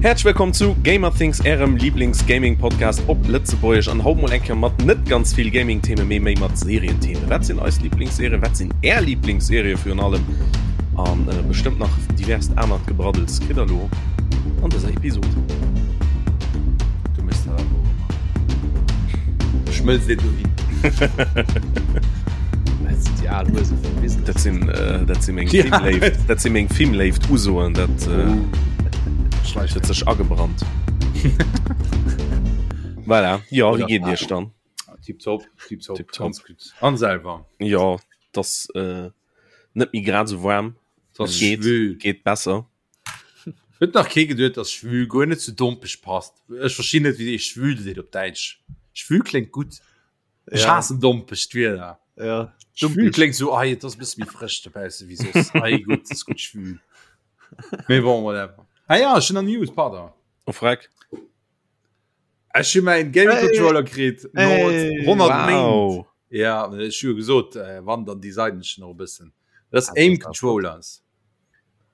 Häerzlech wëllkomm zu Gamerthings, ärem Lieblings-Gaming-Podcast op Lëtzebuergesch an haut mol eng Kéier mat net ganz vill Gaming-Themen, mee méi mat Serienthemen. Wat sinn eis Lieblingsserien? Wat sinn är Lieblingsserie virun allem? An äh, bestëmmt nach diverst anert Gebraddels kritt der lo an dëser Episod. Du méchs dat awer och ëmmer. Schmëlz dir dohin. Dat sinn déi al Huese vum Business. Dat sinn, äh, dat sinn meng Filmléift, dat sinn meng Filmléift Usoen, dat äh, Oh. Schleich huet sech agebrannt. Voilà. Ja, wéi Oder geet Iech dann? Tipptopp, tipptopp, Tipptopp. ganz gutt. An selwer. Ja, das äh, net méi grad sou waarm. Das Et geet, schwül. geet besser. Huet nach kee geduet, dass schwül guer net zu dompeg passt. Ech verstinn net, wéi ee schwül seet op Däitsch. Schwül kléngt gutt. Ech Ja. haassen dompeg d'Wieder. Ja, Schwül kléngt sou, ei, et ass e bësse méi frësch dobausse wéi soss. Ei, gutt, et ass gutt schwül. Mee bon, whatever. Ah ja, ech hunn nach News, pardon. Oh, freck. Ech hu mäin Gaming Hey. Controller kritt no Hey. 100 Méint. Wow. Ja, ech hu jo gesot, äh, wann, dann designen ech nach e bëssen. Dat ass Ah, das Aim ist auch flott. Controllers.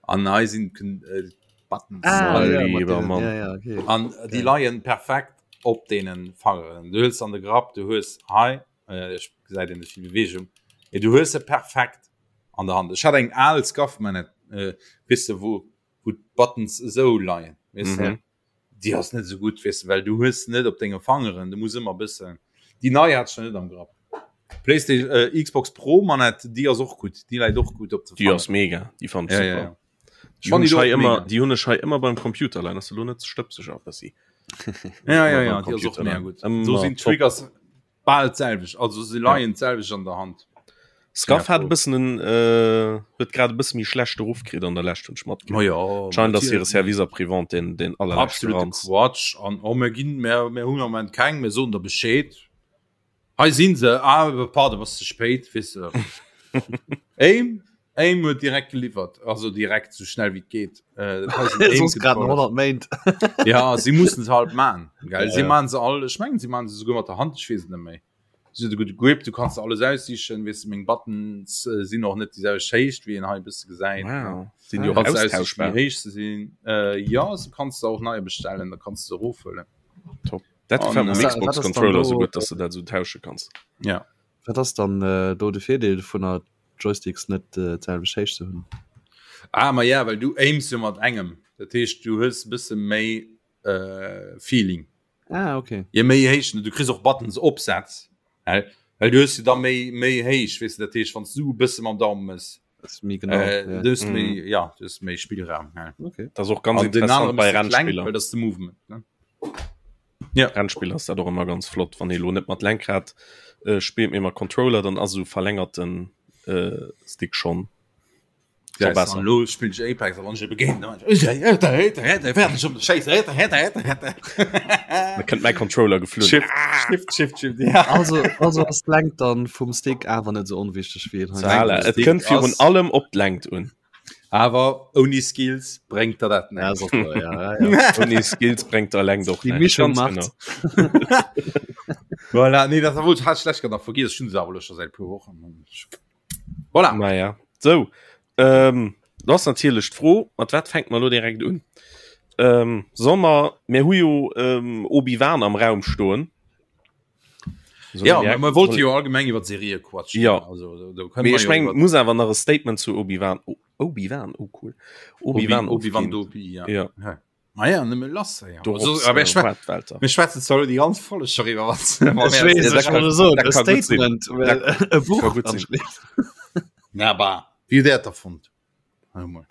An hei sinn äh, Buttons. Ah, Mein ja, mat lieber deenen, Mann. ja, ja, okay. An déi Geil. leien perfekt op deenen Fangeren. Du hues an de Grapp, du hues hei, äh, ech gesäit een net vill Bewegung, mee du hues se perfekt an der Hand. Ech hat eng al Scuff Manette, äh, weess de, wou, wou d'Buttons esou leien, weess de. Mhm. Déi ass net esou gutt, weess de, well du hues se net op denge Fangeren, du muss ëmmer e bëssen. Déi nei hat ech nach net am Grapp. Playstation, äh, Xbox Pro Manette, déi ass och gutt, déi läit och gutt op de Déi ass Fangeren. mega, déi fannen ech Ja, ja, super. ja. Déi hunn Fand ech ich hei och ëmmer, mega. déi hunn ech hei ëmmer beim Computer leien. Ass elo net ze stëbseg a bëssi. Ja, ja, Ëmmer ja, beim déi ass och Computer mega leien. gutt. Do Ëmmer sinn top. d'Triggers bal d'selwecht, also se leien d'selwecht an der Hand. Scuff Ja, hat e bëssen en, äh, huet grad e bësse méi schlechte Ruff kritt an der Lescht, hunn ech matgekritt. Ma ja, Scheint ass hire natierlech. Service après-vente deen, deen allerleschte Absolute Ranz. Quatsch an oh mir ginn mir mir hunn am Moment keng, mir soen der Bescheed. Hei sinn se, ah pardon, bass ze spéit, weess de. Aim Aim huet direkt geliwwert, also direkt sou schnell wéi et geet. Äh, dat hei sinn Aim Soss grad Controllers. 100 Méint. Ja, si mussen se halt man, gell? Ja, Si ja. man se all, ech mengen si man se souguer mat der Hand, ech weess et net méi. Si huet e gudde Grip, du kanns alles aussichen, weess de, meng Buttons äh, sinn och net déi selwecht Héicht, wéi een hei e bësse gesäit. Wow. Sinn déi Du och kanns aussichen, wéi austauschbar? héich se sinn. Äh, ja, se kanns de och neier bestellen, da kanns de se erofhuelen. Top. Dat An, gefält mir um äh, Wat Xbox ass dann Controller do- sou gutt, dass du dat sou tausche kanns. Ja. Wat ass dann äh, do de Virdeel vun der Joysticks net äh, d'selwecht Héicht ze hunn? Ah, ma ja, well du aims jo mat engem. Dat heescht, du hues e bësse méi äh, Feeling. Ah, okay. Je méi héich, du kriss och Buttons opsetz, well well du hues jo da méi méi héich, weess de, dat heescht, wann s du e bësse mam Daumen mëss, Das ist méi genau. äh, ja. du hues Mhm. méi, ja, du hues méi Spillraum. Ja. Okay. Dat ass och ganz An den interessant anere bei bësse kleng, Rennspiller. well dat ass de Movement, ne? Rennspiller ass dat och ëmmer ganz flott, wann ee lo net mat Lenkrad äh, spillt, mee mat Controller, dann ass esou verlängerten äh, Stick schonn Ja, scho besser. an lo spill ich Apex, a wann ich ebe géint, dann Da kënnt mäi Controller geflunn. Shift, Shift, Shift, Shift, ja. Also, also ass d'Längt dann vum Stick awer net sou onwichteg wéi een hei Voilà, et Stick kënnt virun ass- allem op d'Längt un. Awer ouni Skills bréngt der dat Ja, näischt. ass och wahr, ja, ja, ja. Ouni Skills bréngt der Längt och Déi näischt. Mischung Ganz macht. genau. Voilà, nee, dat wollt hat schlecht nach vergiss schon se awer lo scho säit puer Wochen. Voilà. Naja, sou. Ähm, do ass natierlech d'Fro, mat wat fänkt mer lo direkt un? Ähm, soll mer, mir hu jo ähm, Obi-Wan am Raum stoen. Soll Ja, direkt- man wollte jo allgemeng iwwer Serie quatschen. Ja. Also, do, do können Mee wir ech jo meng, iwwer muss awer nach e Statement zu Obi-Wan. Oh, Obi-Wan, oh cool. Obi-Wan Obi-Wan Obi-Wan ofginn. Dobi, ja. Ja. Ja. Ma ja, nëmme lass, ja. Dorops, Also, aber äh, ich schwä- waart, Walter. mir schwätzen zwar déi ganz Folge schon iwwer was. Ech weess, dat ech kann- wollte soen, dat e kann gutt sinn. Statement, well e Buch kann gutt sinn. anschléisst. Na bah, wie hutt Där et da fonnt? Hör mol.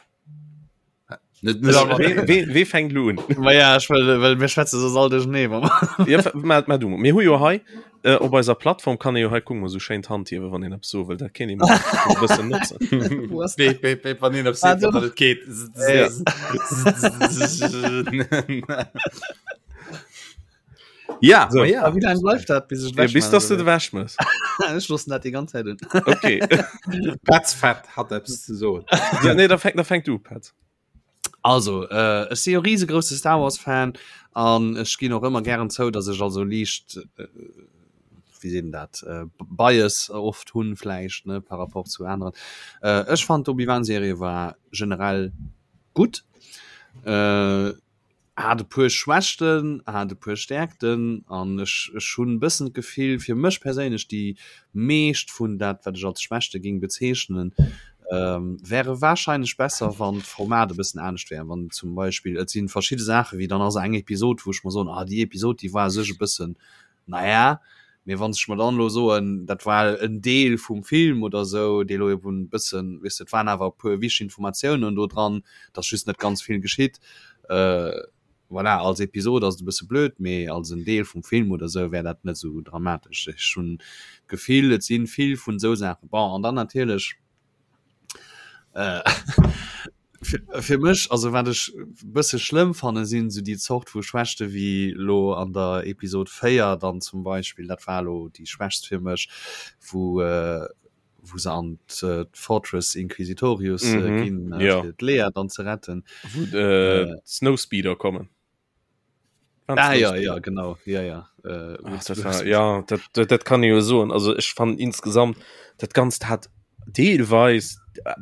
Net, net all Wee, wee, wee fänkt lo un? Ma ja, ech well, well mir schwätze soss all duerchernee, wa mer- Ja, ma, ma du, mir hu jo hei äh, op eiser Plattform kann ee jo hei kucken, mol sou schéin d'Hand hiewen, wann een eppes soe wëll, dat kéint ee mol e bëssen notzen. Wo ass Beep, beep, beep, wann een op Ah, seet, do. datt et geet. Ja. Ja, So. ma ja. Ah, Wéi laang bleift dat, bis ech Ja, bis dass du de wäsch mëss. Ech loossen dat déi ganz Zäit un. Okay. Petz Fett hat eppes ze soen. ja, nee, da fänk, da fänk du, Petz. Also äh, ech si jo riesegrousse Star Wars Fan an ech ginn och ëmmer gären zou, datt ech also liicht äh, wéi seet een dat äh, Bias oft hunn vläicht ne par rapport zu aneren. Äh, ech fand d'Obi-Wan Serie war generell gutt. Äh, hat e puer Schwächten, hat e puer Stärkten an ech, ech hunn e bëssen d'Gefill, fir mech perséinlech, déi meescht vun dat, wat ech als Schwächte géing bezeechnen, wäre warscheinlech besser, wann d'Format e bëssen anescht wär. Wann zum Beispill, et si verschidde Saache wéi dann ass eng Episod, wou ech mer soen, ah déi Episod, déi war u sech e bëssen Naja, mee wann ech mer dann elo soen, dat war en Deel vum Film oder esou, dee elo eben e bëssen, weess de, et waren awer e puer wichteg Informatiounen do dran, et ass just net ganz vill geschitt. Voilà, als Episod ass et e bësse blöd, mee als en Deel vum Film oder esou wär dat net esou dramatesch. Ech hunn d'Gefill, et si vill vun esou Saachen. Bon, an dann natierlech, Fir mech, also wat ech bësse schlëmm fanne sinn esou déi Zort vu Schwächte wéi lo an der Episod 4 dann zum Beispill, dat war lo déi schwächst fir mech, wou wou se an d'Fortress Inquisitorius ginn fir d'Leia dann ze retten. Wou d'Snowspeeder kommen. Ah, ja, ja, genau ja, ja. Äh, Ach, das war, ja dat, dat, dat kann ich jo soen also ech fand insgesamt dat ganzt hat deelweis äh,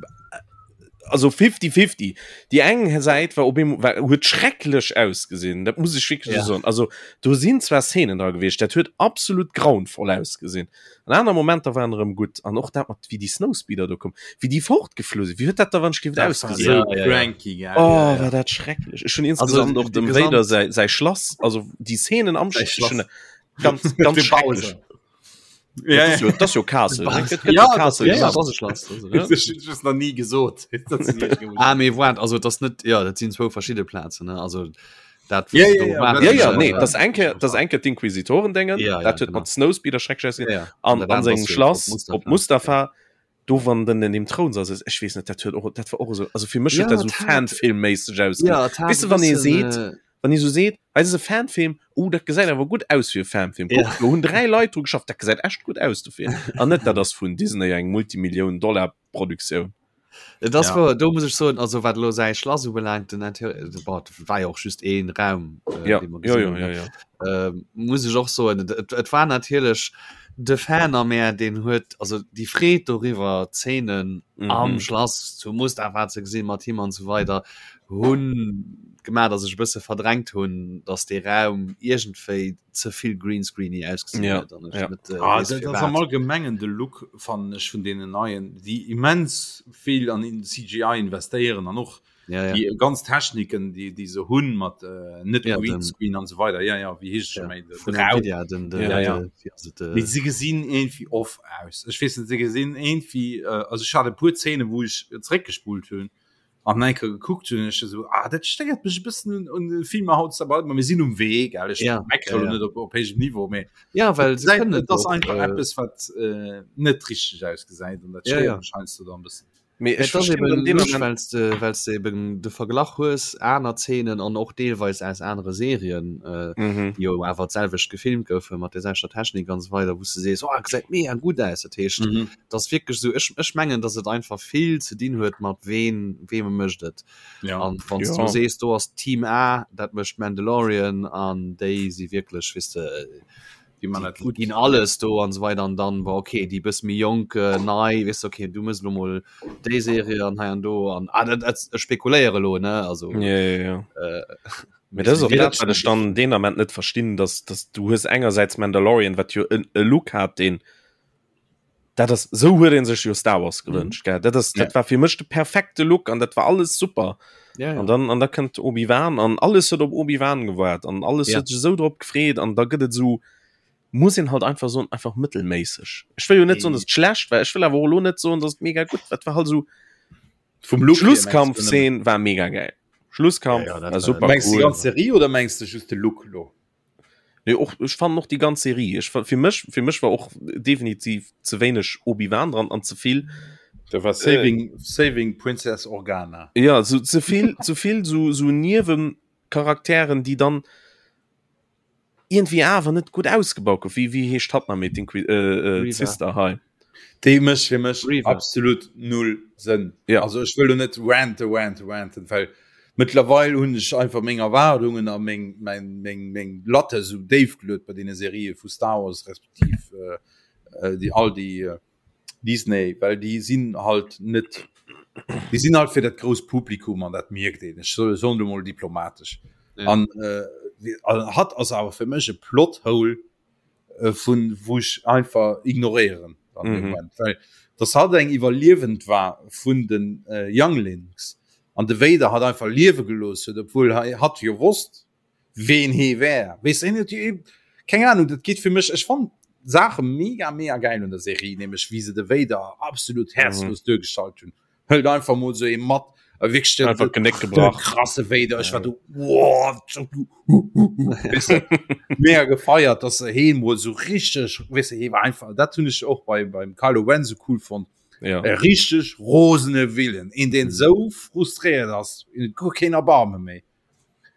also 50 50 die eng Säit war op eemol war huet schrecklech ausgesinn dat muss ich wirklich ja. soen also do sinn zwar Szenen da gewiescht dat huet absolut grauenvoll ausgesinn An aner Momenter waren erëm gutt an och dat mat wéi déi Snowspeeder do koum, wéi déi fortgeflu sinn, wéi huet dat da wann ech géif ausgesinn? Ja, ja, ja. Ja, oh, war dat schrecklech. Ech hunn insgesamt och dem Vader säi, säi Schlass, also déi Szenen am Schlass, ganz, ganz schrecklech. Ja, ja. Das jo Castle. Ja, Castle. Ja, das ist Schlass. Also, noch nie gesot. ah, mee waart, also das net ja, dat sinn zwou verschidde Plazen, ne? Also dat ja, ja, ja, ja, ja, nee, das enke das enke d'Inquisitoren dengen ja, dat huet mat Snowspeeder schrecklech ja, ja. an an sengem Schlass op Mustafa ja. do wann den in dem Thron sass ech weess net dat huet och dat war och so also fir mech ja, dat so Fanfilmméisseg aus ja, weess du wann ee seet äh, wann ee so seet hei ass e Fanfilm oh dat gesäit awer gutt aus fir e Fanfilm ja. do hunn 3 Leit dru geschafft dat gesäit echt gutt aus dofir an net dat ass vun Disney eng Multimillioun Dollar Produktioun. Et ass ja. do muss ech soen also wat lo säi Schlass ubelaangt den Interieur äh, war jo och just een Raum äh, ja. Ja, ja, ja, ja. Äh, muss ech och soen et, et war natierlech de Fan a mär deen huet also déi Freed doriwwer Zeenen mhm. am Schlass zu Mustafa ze gesinn mat him an so weider hunn gemaach dass ech e bësse verdrängt hunn dass dee Raum iergendwéi ze vill greenscreeny ausgesinn ja, huet an ech ja. net, äh, ah, dat ass am allgemengen de Look fannen ech vun deenen neien déi immens vill an in CGI investéieren an och ja, ja. déi ganz Techniken déi déi se hunn mat äh, net ja, Greenscreen an so weider ja ja wéi heescht ja, méi vun Nvidia den, den, ja, ja. De, also de, Mee se gesinn irgendwie off aus ech weess net se gesinn irgendwie äh, also ech hat e puer Szene wou ech zréckgespult hunn an eng Kéier gekuckt hunn ech esou ah dat stéiert mech e bëssen un un de Filmer haut aber mir sinn um Wee gell ech ja, meckere ja, ja. net op op héijem Niveau mee ja well se gesäit kënnen et ass och einfach äh, eppes wat äh, net richteg ausgesäit an dat ja, stéiert ja. mech heiansdo dann e bëssen. Mee ech Et ass verstinn eben dann deen lusch, Ament well s de well s de eben de Verglach hues, aner Zeenen an och deelweis aus anere Serien, äh, mhm. déi jo awer d'selwecht gefilmt goufen, mat der selwechter Technik an esou weider, wou s de sees, oh, gesäit mega gutt aus. Dat heescht, Mhm. 't ass wierklech esou, ech, ech mengen, datt et einfach vill ze dinn huet mat ween, weem e mécht et. Ja. An wann s Ja. du sees, do ass Team A, dat mécht Mandalorian an déi si wierklech, weess de, Déi man déi dat gutt. ginn alles do an esou weider an dann, bon, okay, déi bësse méi jonk, äh, nei, weess de, okay, du méchs elo mol déi Serie an hei an do an, ah, dat, dat, ech spekuléiere elo, ne, also, Ja, ja, ja. äh, Mee dat ass och mee dat, wat ech dann deen Ament net verstinn, dass, dass du hues engersäits Mandalorian, wat jo en, e Look hat, deen dat ass sou huet een sech jo Star Wars gewënscht gell dat ass dat war fir mech de perfekte Look an dat war alles super ja, ja. an dann an da kënnt Obi-Wan an alles huet op Obi-Wan gewaart an alles Ja. huet sech sou drop gefreet an da gëtt et sou muss een halt einfach soen einfach mëttelméisseg ech wëll jo net soen dass et schlecht war ech wëll awer och elo net soen dass et mega gutt war et war halt sou Vum Look her, mengst du nëmmen? Schlusskampfszene war mega geil Schlusskampf Ja, ja, dat war war- super Mengs du déi cool ganz Serie oder mengs du just de Look lo? Nee, och, ech fannen och déi ganz Serie. Ech, fir mech, fir mech war och definitiv ze wéineg Obi-Wan dran an ze vill. Da war Saving, äh, Saving Princess Organa. Ja, so ze vill, ze vill so, so Niewencharakteren, déi dann irgendwie awer net gutt ausgebaut gouf. Wéi, wéi heescht hatt nach méi, d'Inqui-, äh, äh, d'Sister hei? Déi mécht fir mech Reva. absolut null Sënn. Ja. Also ech wëll lo net rante, rante, ranten, well mëttlerweil hunn ech einfach meng Erwaardungen a meng, meng, meng, meng Latte esou déif geluet bei deene Serië vu Star Wars respektiv äh, äh, déi all déi äh, Disney, well déi sinn halt net, déi sinn halt fir dat grousst Publikum an dat mierkt een. Ech soen lo mol diplomatesch. Ja. An äh, hatt ass awer fir mech e Plothole äh, vun wou ech einfach ignoréieren an dem mhm. Moment well das hat eng iwwerliewend war vun den äh, Younglings an de Vader hat einfach liewe gelos huet obwohl hat jo wosst ween hee wär wees keng Ahnung dat geht fir mech ech fand Sache mega mega geil un der Serie nämlich wie se de Vader absolut herzlos mhm. duergestallt hunn hëlt einfach mol sou ee mat a wierklech den, einfach Genéck gebrach krasse Vader ech war du wow, weißt du, mega gefeiert dass se heen mol so richtig weißt du, hee war einfach dat hunn ech och bei beim Kylo Ren so cool fonnt ja. e richtig rosene Willen een deen mhm. sou frustréiert ass guer keen Erbarme méi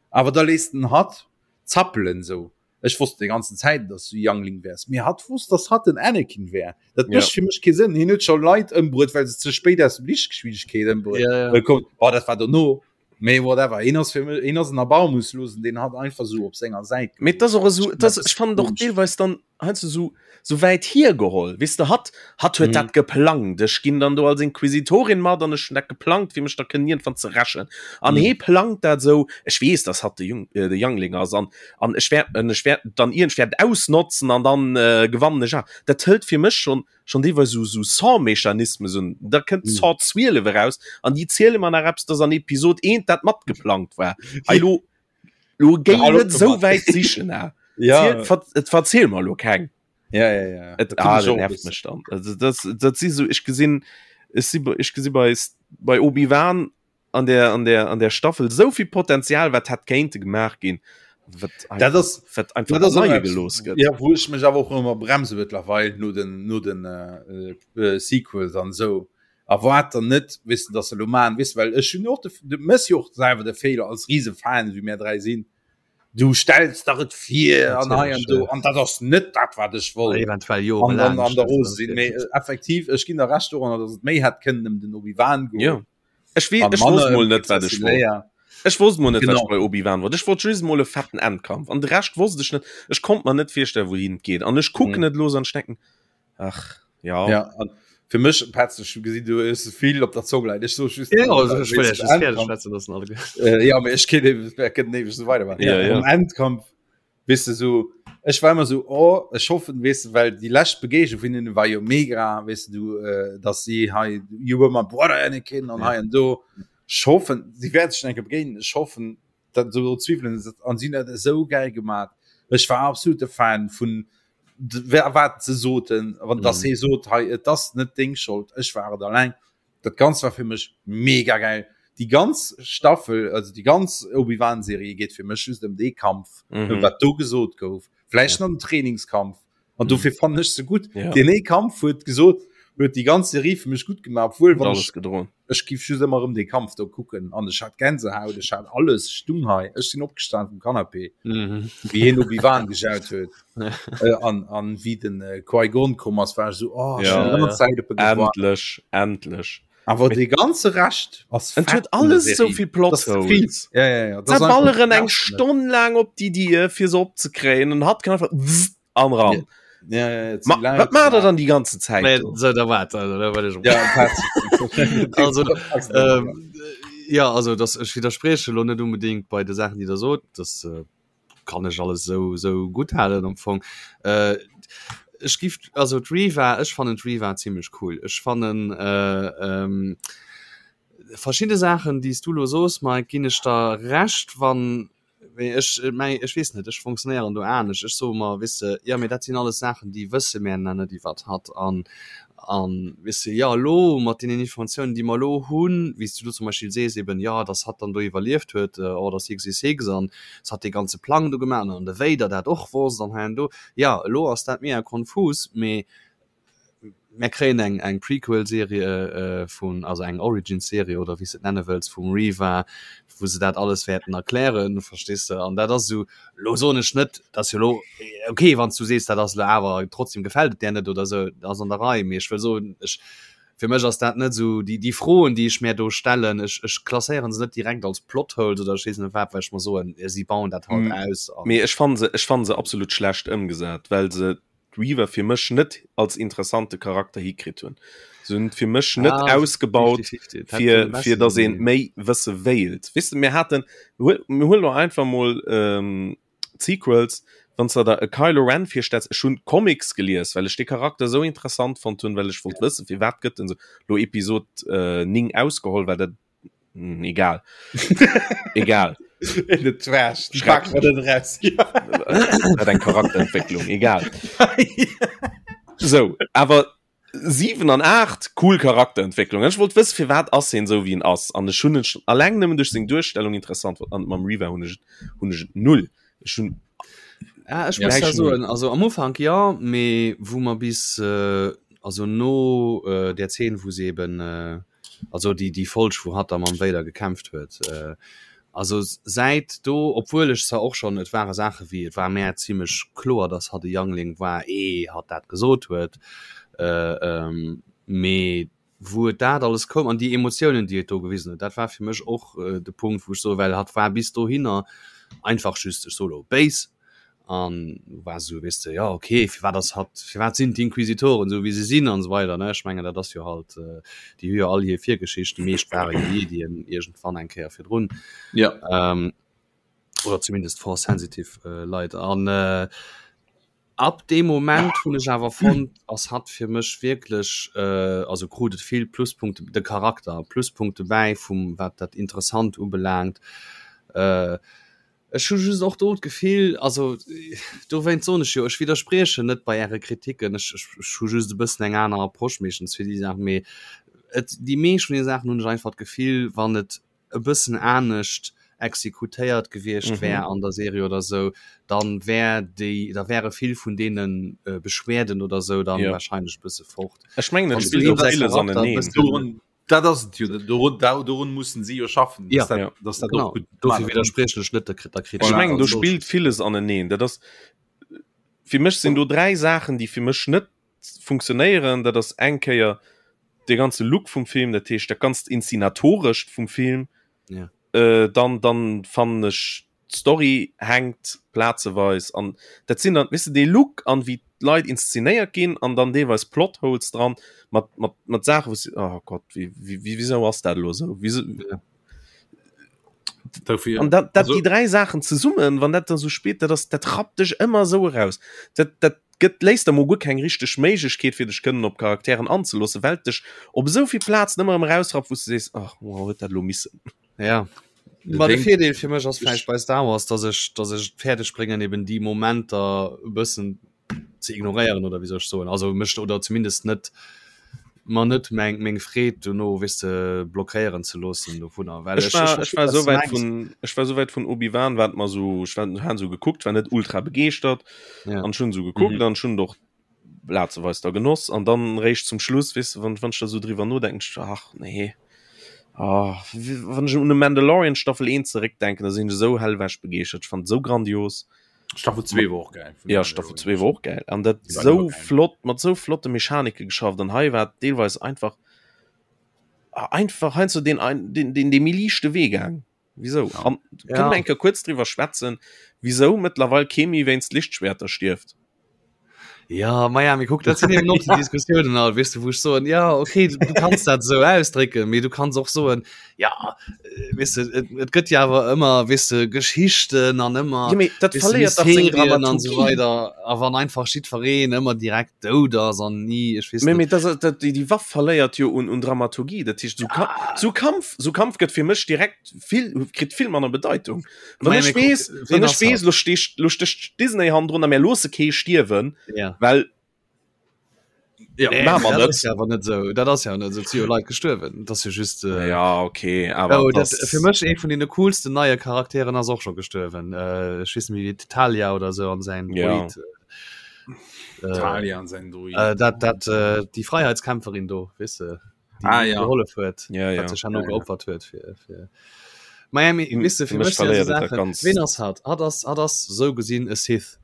awer da léisst den hatt zappelen sou Ech wosst déi ganzen Zäit, dass du Youngling wärs. Mee hatt wosst, dass hatt den Anakin wär. Dat mécht ja. fir mech kee Sënn. Hien huet scho Leit ëmbruet, well se ze spéit aus dem Lichtgeschwindigkeet ëmbruet. Ja, ja. Kommt, oh, dat war dono. Mee whatever. Hien ass fir mech, hien ass en Erbarmungslosen, deen hatt einfach sou op senger Säit. Mee dat ass och esou, dat ass, ech fannen och deelweis dann heiansdo sou, sou wäit hiergeholl. Weess de, hatt, hatt huet mm. dat geplangt. Ech ginn dann do als Inquisitorin mat an ech hunn dat geplangt, fir mech da kënnen iergendwann ze rächen. An mm. hee plangt dat sou, ech weess, dass hatt de Jung, äh, de Youngling ass an an ech wäert an ech wäert dann iergend wäert ausnotzen an dann äh, gewannen ech. Dat hëlt fir mech schon schon deelweis sou sou Saw-Mechanismes un. Da kënnt mm. Saw 12 eraus an déi ziele mer nach eppes, dass an Episod 1 dat matgeplangt war. Hei lo Lo géi net sou wäit sichen ah. Ja. Ziel, et verziel mer lo keng. Ja, ja, ja. Et ah, dat nervt mech dann. Also das, dat si so ech gesinn ech si ech gesi bei bei Obi-Wan an der an der an der Staffel souvill Potenzial wat hätt kéinte gemaach ginn. Wat dat ass wat einfach dat ass leie gelooss gëtt. Ja, wou ech mech awer och ëmmer bremse mëttlerweil no den no den äh, äh, Sequels an sou. Erwaart der net, weess de, dass se elo maachen, weess de, well ech hunn och de, du méchs jo och selwer de Feeler als Risefan, wéi mär 3 sinn, du stells der et vir an hei an do an dat ass net dat, wat ech wollt. Eventuell An jorelaang dann an der stells rose du sinn. et Mee vir. effektiv, ech ginn der Recht doranner, dass et méi hätt kënnen ëm den Obi-Wan Jo. goen Ech wee, an ech wosst manner mol ëm net, wat d'Prinzessin ech wollt. Leia. Ech wosst mol net, wat ech Genau. bei Obi-Wan wollt. Ech wollt just mol e fetten Endkampf an de Rescht wosst ech net. Ech konnt mer net virstellen, wouhin et geet an ech kucken Mhm. et elo an ech denken, Ach ja. Ja, an fir mech Petz, ech gesinn du hues vill op der Zong leien. Ech so just Ja, also, ech wëll just fäerdeg schwätzen loossen alle. Äh, ja, mee ech kéint eben ech kënnt ewech so weidermachen. Ja, ja. Um Endkampf weess de so ech war ëmmer so oh ech hoffen weess de well déi lescht Begegnung vun hinnen war jo mega weess de du äh, dass si hei you were my brother Anakin an Ja. hei an do. Ech hoffen si wäert sech eng Kéier begéinen. Ech hoffen dat esou Zweiwelen an sinn dat esou geil gemaat. Ech war absolute Fan vun wat se soten wann das he sot hei et ass net deng Schold ech war et alleng dat ganz war fir mech mega geil die ganz Staffel also die ganz Obi-Wan Serie geht fir mech just ëm dee Kampf mhm. wat do gesot gouf vläicht ja. nach den Trainingskampf an mhm. dofir fand ech se gut ja. den ee Kampf huet gesot huet die ganz Serie fir mech gut gemacht obwohl wann alles ech gedroen Ech giff just ëmmer erëm dee Kampf do kucken an ech hat Gänsehaut, ech hat alles, ech stung hei, ech sinn opgestan vum Canapé, wéi hien Obi-Wan gejaut huet an an wéi den Qui-Gon komm ass, war ech esou, oh, ech hunn déi ganz Zäit op e gewaart. Endlech, endlech. Awer dee ganze Rescht ass Et huet alles esou vill Plot Holes. Ja, ja, ja. Se balleren eng Stonn laang op déi Dier, fir se opzekréien, an hatt kann einfach wzzt an ran. Ja, ja, ja, Ma, wat macht der dann die ganze Zeit? Nee, so, da wart, also, da wart ich ja, also, ähm, ja, also das, ich widerspreche lo net unbedingt bei de Sachen, die der sot, das äh, kann ich alles so, so gut halen am Fong. Äh, ich gif, also d'Reva, ech fannen d'Reva ziemlich cool. Ech fannen äh, ähm, verschiedene Sachen, déi s du lo sos, Mike, ginn ech der recht, wann Mee ech, mei, ech weess net, ech funktionéieren do anescht. Ech soe mer, weess de, jo, mee dat sinn alles Saachen, déi wësse mär nach net iwwert hatt. An, an, weess de, jo, elo mat deenen Informatiounen, déi mer elo hunn, wéi s du do zum Beispill sees eben, jo, datt hatt dann do iwwerlieft huet, Order 66, an datt hatt dee ganze Plang do gemaach huet an de Vader dat och wosst an hei an do. Jo, elo ass dat mega konfus, mee Mär kréien eng eng Prequel-Serie vun, also eng Origin-Serie oder wéi s de et nenne wëlls, vum Reva, wou se dat alles wäerten erklären, verstees de? An dat ass esou, elo soen ech net, dass jo elo, ok, wann s du sees, dat ass elo awer trotzdem gefält et där net oder esou, dat ass an der Rei, mee ech wëll soen, ech, fir mech ass dat net esou déi déi Froen, déi ech mär do stellen, ech ech klasséieren se net direkt als Plot-Holes oder ech weess net wat, well ech mer soen, si bauen dat halt aus an. Mee ech fanne se, ech fanne se absolut schlecht ëmgesat, well se. d'Reva fir mech net als interessante Charakter hikritt hunn. Se hunn et fir mech net ah, ausgebaut, fir, fir dass een méi wësse wéilt. Weess de, mir haten, mir huelen lo einfach mol ähm, d'Sequels, wann s de der e Kylo Ren virstells, ech hunn d'Comics gelies, well ech dee Charakter esou interessant fonnt hunn, well ech wollt wëssen, firwat gëtt en esou, lo Episod äh, 9 ausgeholl, well dat hm, egal. egal. In the trash. Dat eng Charakterentwécklung, egal. Sou, awer 7 an 8 cool Charakterentwécklung. Ech wollt wëssen firwat ass hien esou wéi en ass an ech hunn en schon alleng nëmmen duerch seng Duerstellung interessant fonnt an mam Reva hunn ech et hunn ech et null. Ech hunn Ja, ech muss da soen, also am Ufank ja, mee wou mer bis äh, also no äh, der Zeen wou se eben äh, also déi déi Folg wou hatt da mam Vader gekämpft huet äh, Also säit do, obwuel ech zwar och schonn, et ware Saache wéi, et war mär zimlech kloer, datt hatt e Youngling war, ee hatt dat gesot huet, mee wou et dat alles koum an déi Emotiounen, déi et do gewisen huet, dat war fir mech och de Punkt, wou ech soe, well hatt war bis dohinner einfach just, ech soe lo, béis. An war esou, weess de, jo okay, firwat ass hatt, firwat sinn d'Inquisitoren esou wéi se sinn an esou weider, ne? Ech mengen dat ass jo halt, déi hu jo all hir Virgeschicht, déi meescht ware jo Jedien iergendwann eng Kéier virdrun. Ja. Ähm, oder zumindest force sensitive äh, Leit. An äh, ab deem Moment hunn ech awer fonnt, ass hatt fir mech wierklech, äh, also krut et vill Pluspunkte, de Charakter Pluspunkte bäi vum wat dat interessant ubelaangt. Äh, Ech hu just och do d'Gefill, also dowéinst soen ech jo, ech widderspriechen net bei Äre Kritiken, ech hu just e bëssen eng aner Approche meeschtens fir déi Saachen, mee et, déi meescht vun deene Saachen hunn ech einfach d'Gefill, wann et e bëssen anescht exekutéiert gewiescht wär an der Serie oder esou, dann wär déi, da wäre vill vun deene Beschwerden oder esou dann wahrscheinlech e bësse fort. Ech mengen, et spillt och villes aneneen. Dat ass et jo, dorun, dorun mussen si jo schaffen, ja, dat, ja. dass dat genau. gut Dofir widerspriechen ech net der Kritik. Ech mengen, do spillt villes aneneen. Dat ass fir mech sinn do dräi Saachen, déi fir mech net funktionéieren. Dat ass eng Kéier de ganze Look vum Film, dat heescht dat ganzt Inszenatorescht vum Film. Ja. Äh, dann, dann fannen ech d'Story hänkt plazeweis an dat sinn dann weess de dee Look an wéi d'Leit inszenéiert ginn an dann deelweis Plotholes dran mat mat mat Saachen wou s oh Gott wéi wéi wisou ass dat elo esou wieso ja. Dofir, an dat dat also, déi dräi Saachen zesummen wann dat dann sou spillt dat ass dat rappt dech ëmmer esou eraus dat dat gëtt léisst der mol guer keng richteg Méiglechkeet fir dech kënnen op Charakteren anzeloossen well et dech op esou vill Plazen ëmmer erëm erausrappt wou s de sees ach wow huet dat elo missen. Ja. Ma de Virdeel fir mech ass vläicht bei Star Wars, dass ech, dass ech et fäerdeg bréngen eben déi Momenter e bëssen ze ignoréieren oder wéi soll ech soen, also mech oder zumindest net mer net meng meng Freed dono weess de blockéieren ze loossen dovunner, well Ech ech war, ech ech war verstinn, esou wat s wäit mengs. vun, ech war esou wäit vun Obi-Wan, wat mer esou, ech war, han esou gekuckt, war net ultra begeeschtert Ja. an ech hunn esou gekuckt Mhm. an ech hunn et och plazeweis da genoss an dann réischt zum Schluss, weess de, wann, wann ech da esou driwwer nodenken, ech, ach nee, ah, wann ech un de Mandalorian Staffel 1 zeréckdenken, da sinn ech esou hellwech begeeschtert, ech fand et esou grandios. Staffel 2 war och geil. Ja, Staffel 2 war och geil an dat Die war esou immer geil. flott, mat esou flotte Mechanike geschafft an hei war et deelweis einfach, einfach heiansdo deen ein, deen, deen, dee méi liichte Wee gaang. Wieso? Ja. An Ja. kënne mer eng Kéier kuerz driwwer schwätzen, wisou mëttlerweil kee méi wéinst Lichtschwerter stierft? Ja, ma ja, mee kuck, dat sinn eben och déi Diskussiounen alt, weess de, wou ech soen, ja, okay, du, du kanns dat esou ausdrécken, mee du kanns och soen, ja, äh, weess de, et, et gëtt jo awer ëmmer, weess de, Geschichten an ëmmer, Ja, mee dat weess de, verléiert dach seng Mysterien an esou Dramaturgie. weider. A wann einfach jiddwereen ëmmer direkt dout ass an ni, ech weess Mee, net. mee das, dat, déi, déi Waff verléiert jo un, un Dramaturgie. Dat heescht, sou, Ka sou Kampf, sou Kampf gëtt fir mech direkt vill, kritt vill manner Bedeitung. Wann Mei, ech mee kuck, weess, ween wann ech ass weess, hatt? lo stecht, lo stecht Disney hannendrun a mir loosse kee stierwen, Ja. well Ja, Nee, Machen wir dat net. ass ja awer net sou. Dat ass ja net sou. Et si jo Leit gestuerwen. Dat ass jo just. Äh, ja, okay, awer Oh, dat, das, fir mech ee vun den coolsten neie Charakteren ass och scho gestuerwen. Äh, ech weess net méi wéi Talia oder sou an säin Ja. Droid. Äh, Talia an säin Droid. äh, dat, dat, äh, déi Freiheitskämpferin do, weess de, déi Ah, ja. gehollef huet, Ja, ja. wat sech herno Ja, ja. geopfert huet fir, fir Miami, Hm, weess de, fir fir mech mech sinn verléiert esou et dat Saachen, ganz- ween ass hatt? Hatt ass, hatt ass sou gesinn e Sith.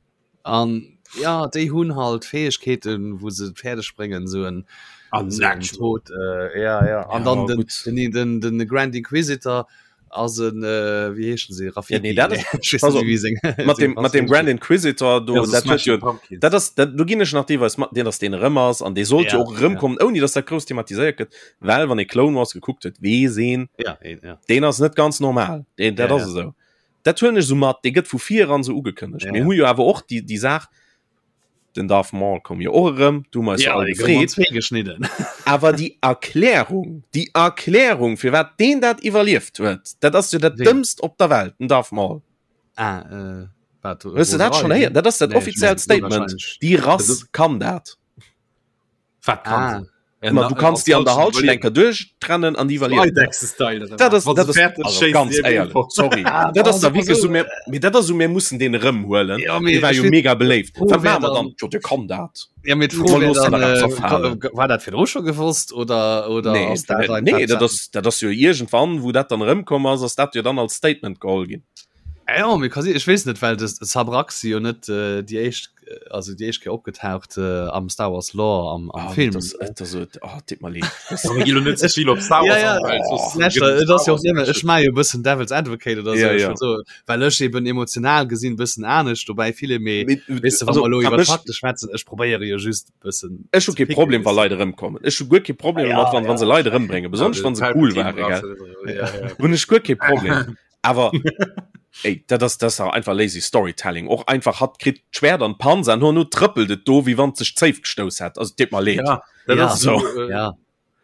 An ja, déi hunn halt Fäegkeeten, wou se et fäerdeg bréngen, sou en An sou en natural. Tod, äh, ja, ja. An Ja, dann den, gutt. den, den, den Grand Inquisitor. Ass en äh, wéi heeschen se Rafiki? Ja, nee, dat ist, also, seng, mat dem, mat dem Grand Inquisitor do, ja, dat huet jo, dat ass, dat, do ginn ech nach deelweis mat, deen ass deen erëm ass an dee sollt ja, jo och erëmkommen, ja. ouni dass dat grouss thematiséiert gëtt, well wann ee Clone Wars gekuckt huet, weess een, ja, ja. deen ass net ganz normal, deen, dat ja, ass ja. esou. Dat huelen ech esou mat, dee gëtt vu vir eran esou ugekënnegt. Ja, Mir hu jo awer och déi, déi Saach, Den Darth Maul koum jo och erëm, du hu mer eis jo all gefreet. geschnidden. Awer déi Erklärung, déi Erklärung, firwat deen dat iwwerlieft huet, dat ass jo dat Dëmmst op der Welt, den Darth Maul. Ah, äh, wat? Hues du dat schonn héieren? Dat ass dat nee, offiziellt Statement. Déi Rass kann dat. Wat kann ah. se? Ma du kanns déi an der Halschent eng Kéier duerchtrennen an déi iwwerliewen. Dat ass, dat ass, also ganz éierlech, sorry. Ah, dat ass da wierklech esou, mir, mee dat ass esou, mir mussen deen erëmhuelen. Ja, mee Dee war jo mega beléift. Wat maache mer dann? Jo, dee kann dat. Ja, mee d'Fro wär dann, äh, war dat virdru scho gewosst oder, oder nee, ass dat einfach nee, dat ass, dat ass jo iergendwann, wou dat dann erëmkomm ass, ass dat jo dann als Statement geholl ginn. Ja, mir kann si, ech weess net, well de Sabrak si jo net äh, déi éischt also déi éischt Kéier opgetaucht äh, am Star Wars Lore am, am ah, Film. Das, das, das, oh, dit mal leed. net vill op Star Wars ja, ja. Oh, das jo immer ech mei jo bëssen Devil's Advocate oder so, ja, ja. so well ech eben emotional gesinn bëssen anescht dobäi viele méi weißt du, also, iwwer Fakte schwätzen ech probéiere jo just bëssen Ech hu kee Problem wa Leit erëmkommen. Ech hu guer kee Problem ja, mat wann, ja. wann se Leit erëmbréngen, besonnesch wann se cool waren. Hunn ech guer kee Problem. Awer ey, dat ass dat ass einfach lazy Storytelling. Och einfach hatt kritt d'Schwert an d'Panz an herno trëppelt et do, wéi wann et sech d'Zéif gestouss hätt. Also deet mer leed. Ja, dat ja. ass so. Äh, ja.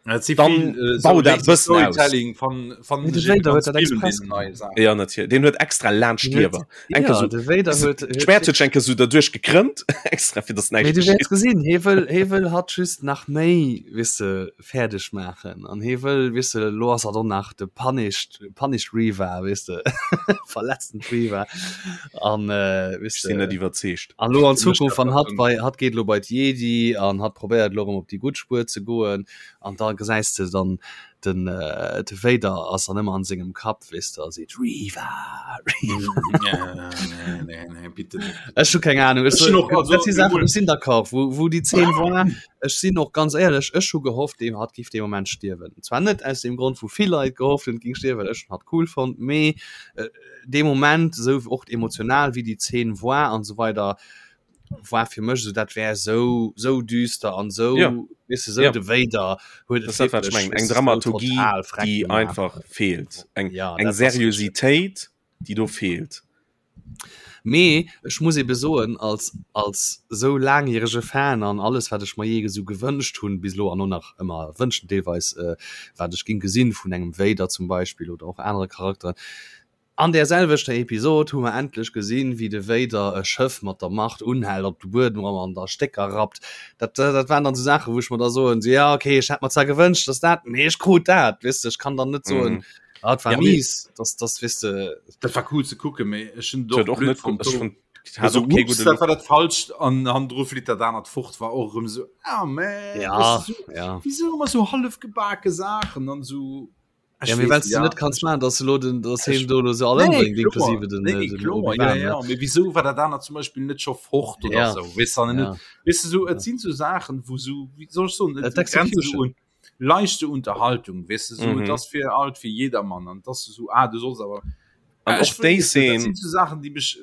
Dat si Dann vill, äh, bau so dat lazy bëssen aus. Storytelling van van Mee de Vader huet dat express gemaach. Ja, natierlech. Deen huet extra laanscht Den huet- d'Liewer. Eng Ja, Kéier so, de Vader huet, huet d'Schwert huet sech eng Kéier so derduerch gekrëmmt, extra fir dass Mee näischt du wäerts geschitt. gesinn, hie wëll, hie wëll hatt just nach méi, weess de, fäerdeg maachen an hie wëll, weess de, elo ass hatt och nach de punished, punished Reva, weess de, verletzten Reva an, weess Ech sinn de, net iwwerzeegt. an elo an Zukunft, wann hatt bei, hatt geet elo bei d'Jedi an hatt probéiert elo erëm op déi gutt Spuer ze goen an da gesäis de dann den, de Vader ass dann ëmmer an sengem Kapp, weess de, a seet Reva, Reva. Nee, nee, nee, bitte net. Ech hu keng Ahnung, ech Ech hunn och, also, dat si Saachen, ech sinn d'accord, wou, wou déi Zeen war, Ech sinn och ganz éierlech, ech hu gehofft, dee hatt giff dee Moment stierwen. Zwar net aus deem Grond, wou vill Leit gehofft hunn, et ging stierwen, well ech hunn hatt cool fonnt, mee dee Moment, esou och emotional wéi déi Zeen war an esou weider, war fir mech esou, dat wär esou, esou düster an esou, Ja. weess de, esou Ja. de Vader huet Dat et ass dat, wat ech wierklech, mengen. Eng weess de, esou Dramaturgie, total freck déi gemaach. einfach feelt. Eng, Ja, eng dat ass richteg. Seriositéit, déi do feelt. Mee ech muss ebe soen, als als esou laangjärege Fan an alles wat ech mer jee esou gewënscht hunn bis elo an och nach ëmmer wënschen deelweis, wat ech géing gesinn vun engem Vader zum Beispill oder och anere Charakteren, an där selwechter Episod hu mer endlech gesinn, wéi de Vader e Schëff mat der Macht unhält, op de Buedem rammt an da Stécker rappt. Dat dat waren dann esou Saachen, wou ech mer da soen, sou, jo okay, ech hätt mer zwar gewënscht, dass dat, mee ech krut dat, weess de, ech kann dann net soen, Ah, et war Ja, mee- mies, das, das weess de. Dat war cool ze kucken, mee ech hunn Huet och och blöd net fonnt. ech fand, hat Also, och kee ups, gudde dat Look. war dat falscht an hannendru flitt dat anert fort war och erëm sou ah man Ja, weißt du, so, ja. wieso ëmmer sou hallef gebake Saachen an sou Ech Ja, mee weess wells du ja. net kanns maachen, dass elo den, dass Ech- hien do elo se all Nee, ëmbréngt, kloer. inklusive den, Nee, den kloer, Obi-Wan, ja, ne? ja. Mee wieso war dat anert zum Beispiel net scho fort oder Ja. sou weess du, an Ja. net weess du sou et sinn sou Saachen wou sou wéi soll ech soen et Et grenzt sou Execution. un leichte Unterhaltung weess de sou Mhm. et ass fir alt fir jedermann an dass du sou ah du solls awer An Äh, och ech déi weess net, dat Szene sinn sou Saachen déi mech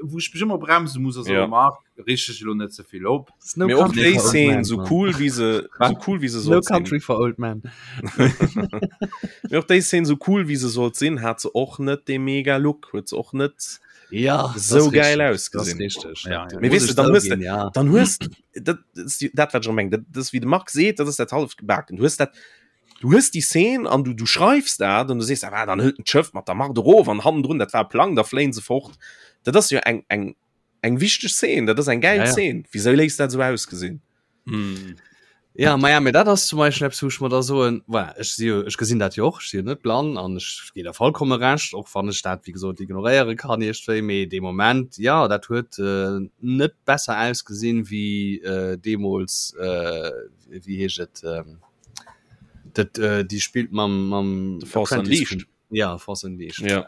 wou ech mech ëmmer bremse muss a soe Ja. Marc reeg dech elo net ze vill op. It's no Mee och country déi for old Szene men, sou man. cool wéi se Wat? sou cool wéi se No sollt sinn. country for old men. Mee och déi Szene sou cool wéi se sollt sinn, hat se och net dee mega Look, huet se och net Ja, das sou ist geil richtig. Das ist ausgesinn. richtig. Ja, Da ja. Mee muss weess de, ech dann hues de zouginn, ja. dann hues dat ass déi dat wat ech meng, dat ass wéi de Marc seet, dat ass dat halleft gebaken. Du hues dat du hues déi Szene an du du schreifs dat an du sees, ah, dann hëlt en d'Schëff mat der Macht erof an hannendrun, dat war e Plang, da fléien se fort. Dat ass jo eng eng eng wichteg Szene, dat ass eng gäil Ja, ja. Szene. Wisou léisst dat esou ausgesinn? Mm. Ja, ma ja, mee dat ass zum Beispill eppes, wou ech mer da soen, voilà, ech si jo, ech gesinn dat jo och, ech si jo net blann an ech ginn der vollkomme Recht, och wann ech dat, wéi gesot, ignoréiere kann iergendwéi, mee dee Moment, jo, dat huet net besser ausgesinn wéi deemools, wéi heescht et, dat déi spillt mam, mam The Force Apprentice Unleashed. vum, ja, Force Unleashed. Ja.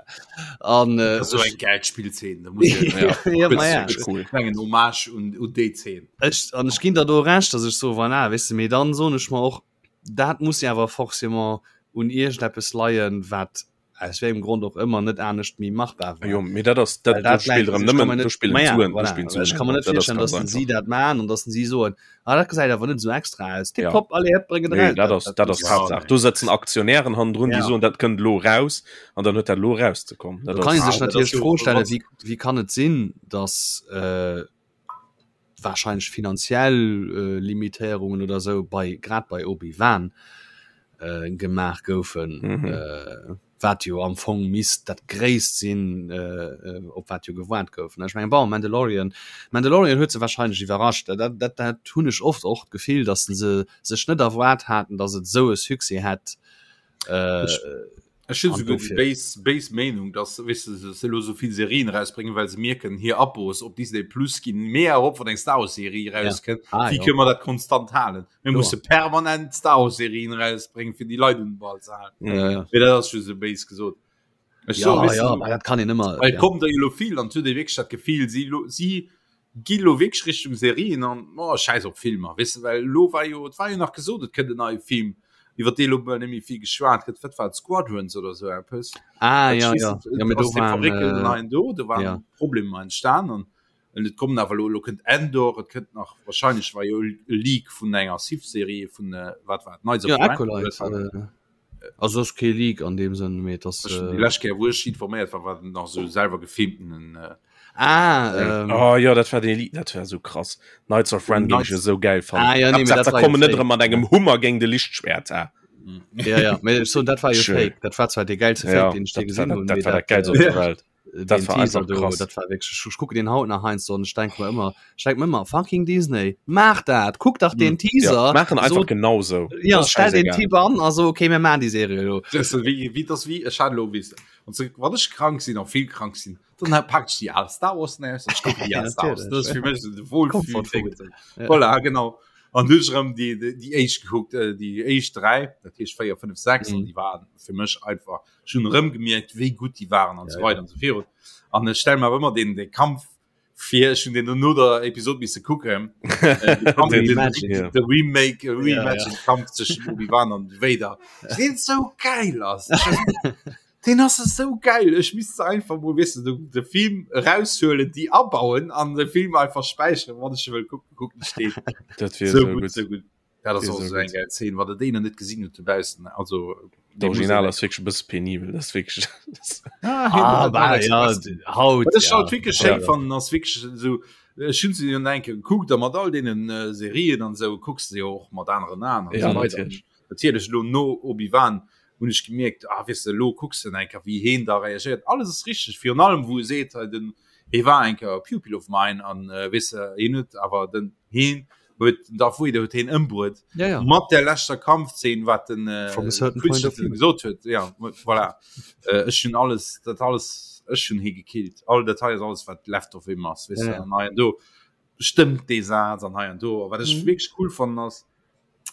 An äh, so eng geil Spielszene da muss ich, Ja. ja, ma ja. Richtig cool. mengen Hommage un, un déi Szene. Ech, an ech ginn der do recht, dass ech so voilà, weißt du, mee dann soen ech mer och, dat muss ja awer forcément un iergendeppes leien, wat. aus wéi engem Grond och ëmmer net anescht méi machbar war. Jo, mee dat ass dat, dat spillt erëm nëmmen do spillen d'Suen, do spillen d'Suen Ech ka mer net virstellen, datt si dat maachen an datt si soen, ah dat gesäit awer net esou extra aus, tipptopp, allez hëpp, bréng et eraus. Nee, dat ass dat ass d'Haaptsaach. Do sëtzen Aktionären hannendrun, déi soen, dat kënnt elo eraus an dann huet dat elo erauszekommen. Do kann ee sech natierlech d'Fro stellen, wéi wéi kann et sinn, datt wahrscheinlech finanziell Limitéierungen oder esou bei grad bei Obi-Wan gemaach goufen, wat jo am Fong misst dat Gréisst sinn, op wat jo gewaart gouf. Ech mengen, bon, Mandalorian, Mandalorian huet se wahrscheinlech iwwerrascht. Dat, dat, dat hunn ech oft och d'Gefill, datt se sech net erwaart haten, datt et esou e Succès hätt. Ech hunn souguer déi béis, béis Meenung, dass, weess de, se elo sou vill Serien erausbréngen, well se mierken, hir Abos op Disney Plus ginn méi erop, wann eng Star Wars Serie erauskënnt. Ja. Ah, Wéi kënne mer dat konstant halen? Mir musse permanent Star Wars Serien erausbréngen, fir déi Leit un den Ball ze halen. Ja, ja. Mee dat ass just esou béis gesot. Ech ja, so, ja, du, dat kann een ëmmer. Well ja. kommt der jo vill an huet ee wierklech dat Gefill, si lo, si gi lo wierklech Richtung Serien an oh, scheiß op Filmer, weess de, well lo war jo, et war jo nach gesot, et kënnt en neie Film, iwwer dee lo bal net méi vill geschwat gëtt, wat war et, Squadrons oder sou eppes? Ah, ja, ja. ja mee do waren, Fabriken äh, neien do, do waren ja. Problemer entstan an an et kommen awer lo, lo kënnt Endor, et kënnt nach wahrscheinlech war jo e Leak vun enger Sith-Serie vun äh, wat war et, Knights of ja, Acolyte, äh, Also ass kee Leak an deem Sënn, mee et ass. Déi lescht Kéier wou ech informéiert war, war nach sou selwer gefilmtenen. Äh, ah, ähm, oh, jo, dat war dee Leak, dat war sou krass. Knights of Ren géing ech esou gäil fannen. Ah, ja, nee, mee dat war kommen net erëm mat engem Hummer géing de Lichtschwert, ha. Ja, ja, mee ech soen, dat war jo fake. Dat war zwar dee gäilste Fake, ja, deen ech je gesinn hunn. Dat war dat gäilst op der Welt. Dat war einfach krass. Dat war wierklech, ech kucken deen haut nach heiansdo an ech denke mer ëmmer, ech denke mer ëmmer, fucking Disney, maach dat, kuck dach deen Teaser. Ja, maachen einfach so, genau sou. Ja, stell den Typ an a so, okay, mir maachen déi Serie elo. Dat ass wéi, wéi, dat ass wéi, ech hat elo, weess de, wann se, wann ech krank sinn a vill krank sinn, dann pak ech déi al Star Wars aus an ech kucken déi al Star Wars. Dat ass fir mech esou de Wohlfühl-Ding. Voilà, genau. An du hues erëm déi, déi éischt gekuckt, déi éischt 3, dat heescht 4, 5, 6, an déi waren fir mech einfach Ech hunn erëm gemierkt, wéi gutt déi waren an esou weider an esou virun. An ech stelle mer awer ëmmer deen, dee Kampf vir, ech hunn deen no der Episod misse kucken, de Remake, Reimagined Kampf zwëschen Obi-Wan an Vader, deen esou geil ass. Deen ass esou geil. Ech misst se einfach mol, weess de, de Film eraushuelen, déi abauen an de Film einfach späicheren, wann ech e wëll kucken, kucken ech deen. Dat wier esou gutt. Esou gutt. Dat ass och esou eng geil Szene, wann der déi nach net gesinn hutt dobaussen. Also D'Original ass wierklech e bësse penibel, dat ass wierklech. Ah, bah, ja, haut. Wat ech halt wierklech schéin fannen, ass wierklech esou, ech hunn se jo nach eng Kéier gekuckt a mat all deenen Serien an esou kucks de jo och mat aneren Aen an esou weider. Natierlech elo no Obi-Wan hunn ech gemierkt, ah weess de, elo kucks de nach eng Kéier wéi heen da reagéiert. Alles ass richteg, virun allem wou e seet hei den, hee war eng Kéier e Pupil of mine an weess de, heen huet awer den, heen huet den Darth Vader huet heen ëmbruet ja, ja. mat der leschter Kampfszene wat den äh, gesot huet ja voilà. äh, ech hun alles dat alles ech hun hie gekillt all Datei ass alles wat left of him ass weißt ja, ja. do stëmmt dee Saz an hei an do wat ech mhm. wirklich cool fand ass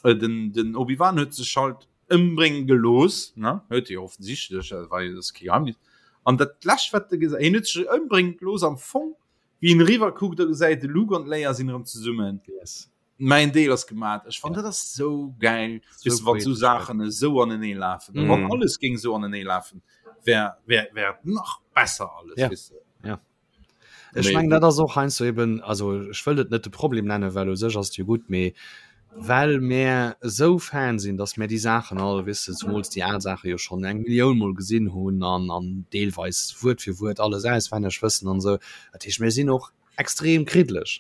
äh, den den Obi-Wan huet sech halt ëmbrénge gelooss ne huet jo offensichtlech äh, war jo das Geheimnis an dat lescht wat de gesait hien huet sech ëmbrénge gelooss am Fong Wéi en eriwwer kuckt, da gesäit de Luke an d'Leia sinn erëm zesummen. Yes. Mäin Deel ass gemat. Ech fannen, dat ass sou gäil, weess de, wann sou Saachen esou anenee lafen. Mm. Wann alles géing esou anenee lafen, wär, wär, wär et nach besser alles, ja. weess de. Ja. Ech mengen, dat ass och heiansdo eben, also ech wëll et net de Problem nennen, well u sech ass et jo gutt, mee well mär esou Fan sinn, dass mär déi Saachen all, weess de, zumools déi al Saache jo schonn eng Millioun mol gesinn hunn an an deelweis Wuert fir Wuert alles auswenneg wëssen an esou. Dat heescht, mir sinn och extrem kriddlech,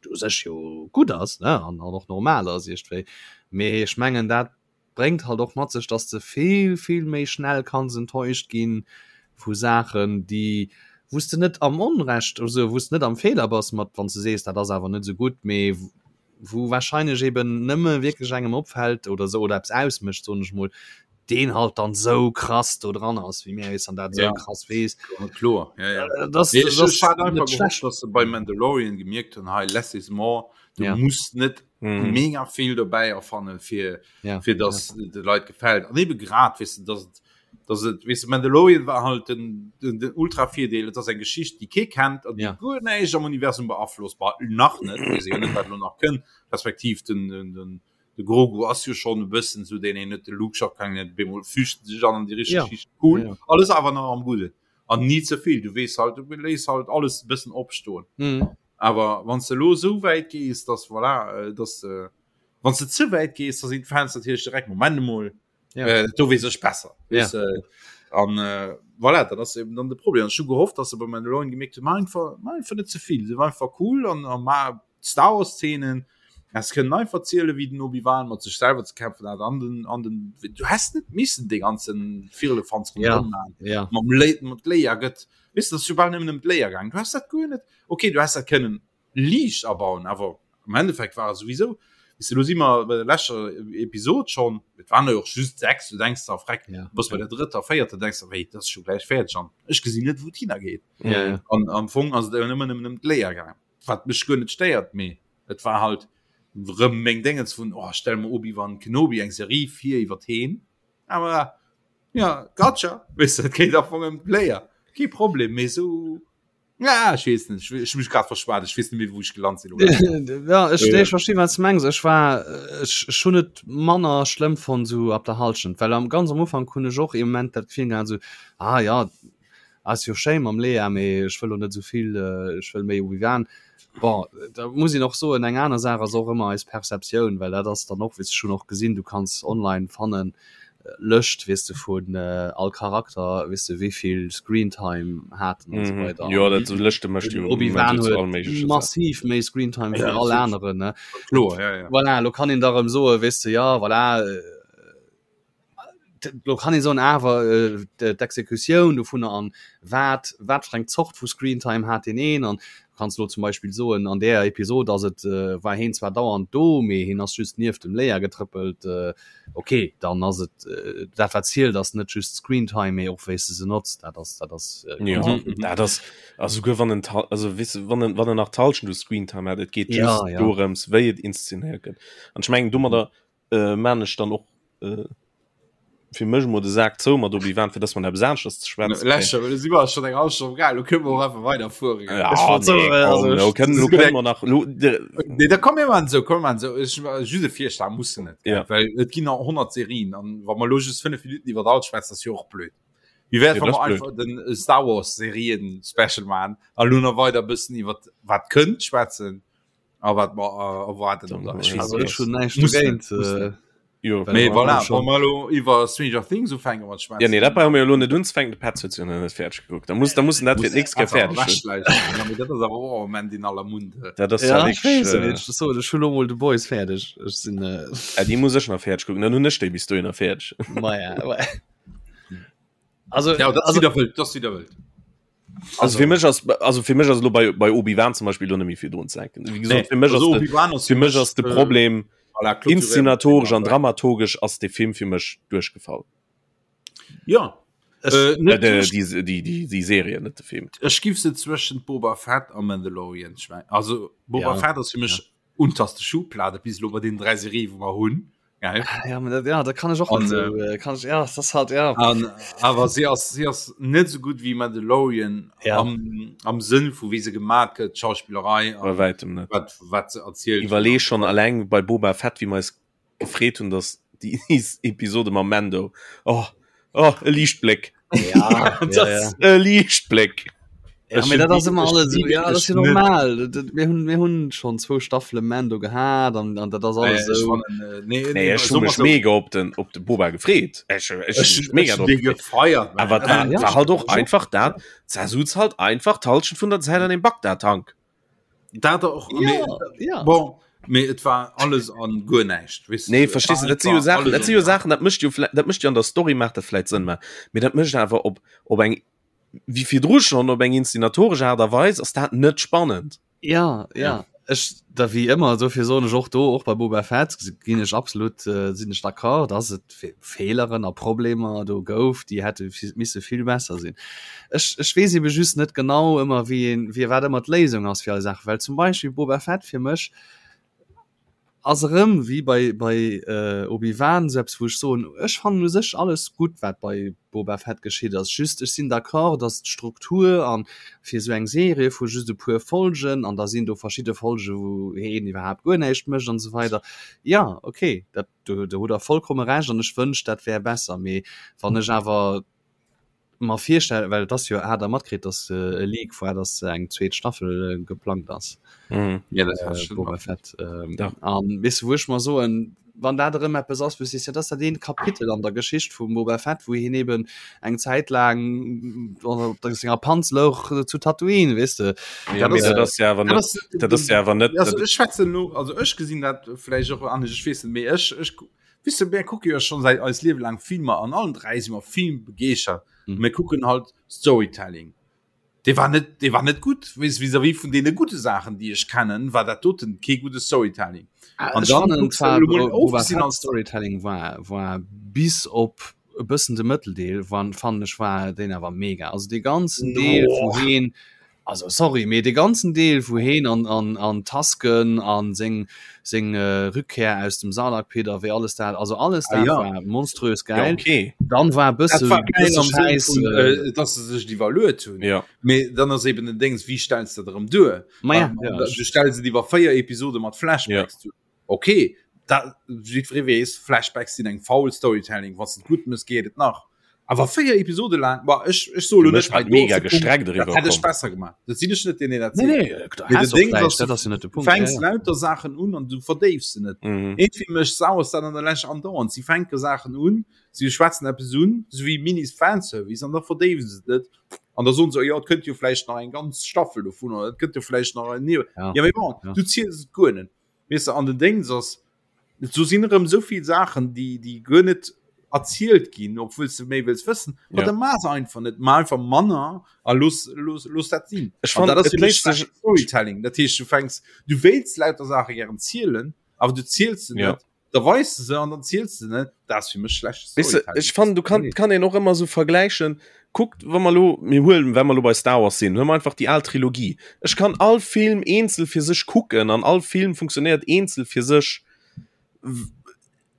wat u sech jo gutt ass, ne, an an och normal ass iergendwéi. Mee ech mengen, dat bréngt halt och mat sech, dass de vill, vill méi schnell kanns enttäuscht gi vu Saachen, déi, wou s de net am Onrecht, also wou s de net am Feeler bass mat, wann s de sees, dat ass awer net esou gutt, mee wou wahrscheinlech eben nëmme wierklech engem opfält oder esou oder eppes ausmécht, soen ech mol, deen halt dann esou krass do dran ass wéi mir eis an dat esou ja. krass weess. Ja, kloer. Ja, ja. Äh, das, nee, das, das einfach gehofft, dass se bei Mandalorian gemierkt hunn, hei less is more, du ja. musst net mm. mega vill dobäi erfannen fir ja. fir dass ja. de Leit gefällt. An eben grad weess du, dass et dass et weess du, Mandalorian war halt den, den, den ultra Virdeel, et ass eng Geschicht, déi kee kennt an déi ja. guer näischt am Universum beaflosst, bah, nach net, weess jo net wat lo nach kënnt, respektiv den, den, den. De Grogu ass jo schonn e bëssen esou deen een huet, de Luke scho keng net, op eemol fügt en sech an an déi richteg Ja. Schicht. Cool, Ja. alles awer nach am Gudden an ni ze vill. Du weess halt, du léiss halt alles e bëssen opstoen. Mhm. Awer wann s de elo esou wäit gees, dass voilà, dass de, wann s de ze wäit gees, da sinn d'Fans natierlech direkt, Moment emol, Ja. äh, do weess ech besser. Ja. Weess de? An äh, voilà, dat ass eben dann de Problem. An ech hu gehofft, dass se bei Mandalorian gemierkt hunn, maach einfach, maach einfach net ze vill, sief einfach cool an, an maach Star Wars Szenen es kënnen einfach ziele wéi den Obi-Wan mat sech selwer ze kämpfen hat an den an den du häss net missen de ganzen Firlefanz Ja, ronderëm maachen ja. mam Lé mat Leia gëtt weess du, dat ass jo bal nëmmen ëm d'Leia gaangen du häss dat guer net okay du häss dat kënnen liicht abauen awer am Endeffekt war et souwisou weess du lo si mer bei der leschter Episod schonn et waren der jo och just 6 du denks der freck Ja, du bass bei der drëtter véierter denks der wéi dat ass scho gläich fäerdeg an ech gesinn net wou et hinnergeet Ja, ja. an am Fong ass et awer nëmmen ëm d'Leia gaangen wat mech guer net stéiert, mee et war halt rëm meng Déngens vun oh stell mer Obi-Wan Kenobi eng Serie vir iwwer heen, awer ja gotcha, weess de, et geet am Fong ëm d'Player, kee Problem, mee sou ja ech weess net, ech hu mech grad verschwat, ech weess net méi wou ech gelant sinn. Ja ech nee, ech verstinn wat s de mengs, ech war ech ech hunn et manner schlëmm fonnt sou ab der Halschent, well am ganz am Ufank hunn ech och ee Moment dat Gefill gehat sou ah ja Ass jo schéin mam Lea, mee ech wëll lo net esouvill, ech wëll méi Obi-Wan. Bon, da muss een och soen, eng aner Saach ass och ëmmer eis Perceptioun, well dat ass dann och, weess ech hunn och gesinn, du kanns online fannen, Lëscht, weess de, vun all Charakter, weess de, wéivill Screentime haten an esou weider. Jo, dat esou Lëschte mécht jo Obi-Wan zu all huet méigleche Saachen. massiv méi Screentime wéi Ja, all natierlech. aneren, ne. Kloer, ja, ja. Voilà, lo kann een da erëm soen, weess de, ja, voilà, Lo kann ee soen, awer d'Exekutioun dovunner an wat wat fir eng Zort vu Screentime hat deen een an du kanns elo zum Beispill soen, an där Episod ass et war heen zwar dauernd do, mee heen ass just nieft dem Leia getrëppelt. Ok, dann ass et dat wat zielt ass net just d'Screentime, mee och wéi s de se notz. Dat ass dat ass Jo, dat ass a souguer wann en also weess de wann en wann en nach d'Hallschent u Screentime hat, et geet just dorëms wéi et inszenéiert gëtt an ech mengen domadder äh, man ech dann och äh, fir mech mo de Sak zou mat Obi-Wan fir dass man eppes aneschters ze schwätzen Lächer, well si war schon eng halb Stonn geil, lo kënne mer och einfach weiderfueren. Ja, Ech wollt nee, soen, also komm, lo ech- kënnen, lo kënnen mer nach lo, de, Nee, da komm mir man so, komm man so. Ech just e Virschlag muss net. Ja. Well et ginn nach 100 Serien an wa mer lo just 5 Minuten iwwer all schwätzen, ass jo och blöd. Wie wär Ja, wa das mer blöd. einfach den Star Wars Serien Special man a lo nach weider bëssen iwwer wat kënnt schwätzen. A wat mer äh, erwarten Dann, oder ech ja. weess Also net. ech hunn näischt Muss dogéint. net, muss Äh, net. jo. Well Mee mer voilà, haben schon- wa mer lo iwwer Stranger Things ufänken mat schwätzen. Ja, nee, dat brauche mir elo net unzefänken, de Petz huet se jo nach net fäerdeg gekuckt. Da muss, da muss en dat fir d'nächst Kéier fäerdeg hunn. Ja, mee dat ass awer och am Moment in aller Munde. Dat ass Ja, ja ech weess wierklech, et äh, net. Ech soen, ech hu lo mol The Boys fäerdeg. Ech sinn äh, äh, déi muss ech nach fäerdeg kucken, dann hunn ech déi bis dohinner fäerdeg. Maja, ouais. Also, Ja, dat ass also, wieder wëllt, dat ass wieder wëllt. Also fir mech ass also fir mech ass lo bei bei Obi-Wan zum Beispiel lo net méi vill drun ze denken. Wéi gesot, fir mech ass de, Obi-Wan ass fir mech ass de äh, Problem voilà, clôturéiert. inszenatorisch an dramaturgesch ass de Film fir mech duerchgefall. Ja. Ech- Äh, Äh, net de, duerch- déi, déi, déi, déi Serie, net de Film. Ech giff se zwëschen Boba Fett a Mandalorian schmei. Also Boba Ja. Fett ass fir mech unterste Schublade bis lo bei den dräi Serie wou mer hunn. Geil. ja, aber dat, ja, da kann ich och An, net so, äh, kann ich, ja, das ist halt, ja. An, awer si ass si ass net so gut wie Mandalorian Ja. am, am Sënn vu wéi se gemat gëtt, d'Schauspillerei Bei an wäitem net. wat wat se erzielt. Iwwerlee schon alleng bei Boba Fett, wéi mer eis gefreet hunn, dass déi Episode mam Mando. Oh, oh, e Liichtbléck. Ja, ja, ja. E Liichtbléck. Ja, mee dat ass ëmmer alles esou, ja, dat ass jo net. normal. Dat, dat, mir hunn, mir hunn schonn zwou Staffele Mando gehat an, an dat ass alles Ech esou. fannen, äh, nee, Nee, ech hu mech mega op den, op de Boba gefreet. Ech, ech, ech Ech, mega ech drop dee gefreet. gefeiert. man. Awer dat Ja, war halt och ich och. einfach dat, da sutz halt einfach d'Halschent vun der Zäit an dem Bagdad-Tank. Dat och, Ja, mee, ja. bon, mee et war alles an guer näischt, weess Nee, du, et verstehst war du, dat si jo einfach Saachen, alles dat si an jo gar Saachen, dat mécht jo vläicht, dat mécht jo an der Story maacht dat vläicht Sënn, mä mee dat mécht awer op, op eng, wéi virdru schonn, op eng inszenatoresch Aart a Weis ass dat net spannend. Ja, ja. Ech, da wéi ëmmer, dofir soen ech och do, och bei Boba Fett ginn ech absolut, äh, sinn ech d'accord, dass et Fe Feeleren a Problemer do gouf, déi hätte misse vill besser sinn. Ech, ech weess ebe just net genau ëmmer, wéi een, wéi wat ëmmer d'Léisung ass fir all Saach, well zum Beispill Boba Fett fir mech. Ass erëm wéi bei bei Obi-Wan esou eppes wou ech soen, ech fannen u sech alles gutt wat bei Boba Fett geschitt ass, just ech sinn d'accord datt d'Struktur an fir esou eng Serie vu just e puer Folgen an da sinn do verschidde Folge wou heen iwwerhaapt guer näischt mécht an esou weider, jo ok dat do do hutt der vollkomme Recht an ech wënscht dat wär besser, mee wann ech awer mer virstellen, well et ass jo, hat der matkritt, dass e Leak war, dass eng zweet Staffel geplangt ass. Mhm. Ja, dat hat äh, Boba Fett. Ähm, ja. An weess du, wou ech mer soen, wann dat erëm eppes ass, wou du sees, ja, dat ass dat eent Kapitel an der Geschicht vum Boba Fett, wou hien eben eng Zäit laang op der senger Panz louch zu Tatooine, weess de. Ja, dat ass, dat ass ja awer net, dat ass ja awer net. Also ech schwätzen lo, also ech gesinn dat vläicht och anescht, ech weess net, mee ech, ech Weess de, mär kucke jo schonn säit eist Liewe laang Filmer an allen 3 si mer filmbegeeschert. Mhm. Mir kucken halt Storytelling. Dee war net, dee war net gutt weess vis-à-vis vun deene gudde Saachen, déi ech kennen, war dat doten kee gudde Storytelling. Ah, an dann fannen zwar ofgesinn als Storytelling war war bis op e bëssen de Mëtteldeel wann fannen ech war deen awer mega. Also dee ganzen Deel no. wou heen Also sorry, mee de ganzen Deel wou heen an an an Tasken an seng seng Rückkehr aus dem Sarlacc Pit a wéi alles dat, also alles dat ah, ja. war monströs geil. Ja, okay. Dann war e bësse war geil am Scheiß, vun, äh, äh, dass se sech iwwerluet hunn. Ja. Mee dann ass eben den Dings, wie stellst du dat erëm duer? Ma ja, ja, du stellst et iwwer 4 Episode mat Flashbacks ja. duer. Okay, da jiddweree weess, Flashbacks sinn eng faul Storytelling, wann s de et gutt mëss, geet et nach. Awer 4 Episode laang, bah, ech, ech soe lo net, hei mega gestreckt eriwwer dat hätt ech besser gemaach. Dat sinn ech net, deen een dat seet. Nee, nee, du has och vläicht, dat ass jo net de Punkt. Du fänks lauter Saachen un an du verdéifs se net. Mhm. Iergendwéi mécht Star Wars dat an der Lescht andauernd. Si fänke Saachen un, si schwätzen eppes un, esou wéi Minis-Fanservice, an da verdéiwe se et net. An da soen se, jo, et kënnt jo vläicht nach eng ganz Staffel dovun, oder et kënnt jo vläicht nach en, ja, mee bon, du ziels et guer net. Weess de, an den Déngs ass, do sinn erëm esou vill Saachen, déi, déi guer net erzielt ginn, obwuel s de méi wëlls wëssen. Ma Ja. da maach se einfach net, maach einfach manner a looss, looss, looss dat sinn. Ech An fand, dat ass et fir mech léisst sech schlecht Storytelling. Dat heescht, du fänks, du wéilts lauter Saache gären zielen, awer du ziels se Ja. net, da weis de se an dann ziels de net. Dat ass fir mech schlecht Weess de, ech fannen, du kann, kann een och ëmmer esou vergläichen. Kuckt, wa mer elo, mir huelen, wa mer elo bei Star Wars sinn, huele mer einfach déi al Trilogie. Ech kann all Film eenzel fir sech kucken an all Film funktionéiert eenzel fir sech.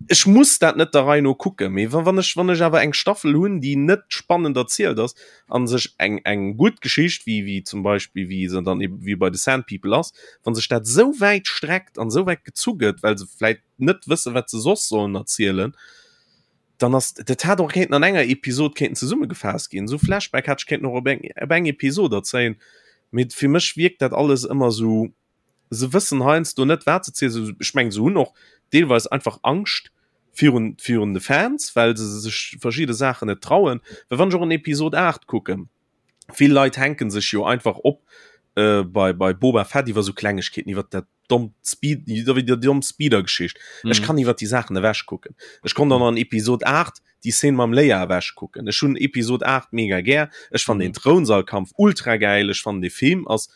Ech muss dat net der Rei no kucken, mee wa wann ech wann ech awer eng Staffel hunn, déi net spannend erzielt ass an sech eng eng gutt Geschicht, wéi wéi zum Beispill wéi se dann eben wéi bei The Sand People ass, wa sech dat esou wäit streckt an esou wäit gezu gëtt, well se vläit net wësse wat se soss sollen erzielen, dann ass dat hat och kéinten an enger Episod kéinten zesummegefaasst ginn. Esou Flashback hätt ech kéinten och op eng op eng Episod erzéien, mee fir mech wierkt dat alles ëmmer esou, se wëssen heiansdo net wat se zielen. Ech mengen se hunn och deelweis einfach Angscht virun virun de Fans, well se sech verschidde Saachen net trauen. Well wann ech och an Episod 8 kucken, vill Leit hänken sech jo einfach op äh, bei bei Boba Fett iwwer sou Klengegkeeten, iwwer dat dommt Speed, iwwer déi domm Speeder-Geschicht. Mhm. Ech kann iwwer déi Saachen ewech kucken. Ech konnt dann an Episod 8 déi Szene mam Leia ewech kucken. Ech hunn Episod 8 mega gär. Ech fand mhm. den Throunsalkampf ultra geil. Ech fand de Film ass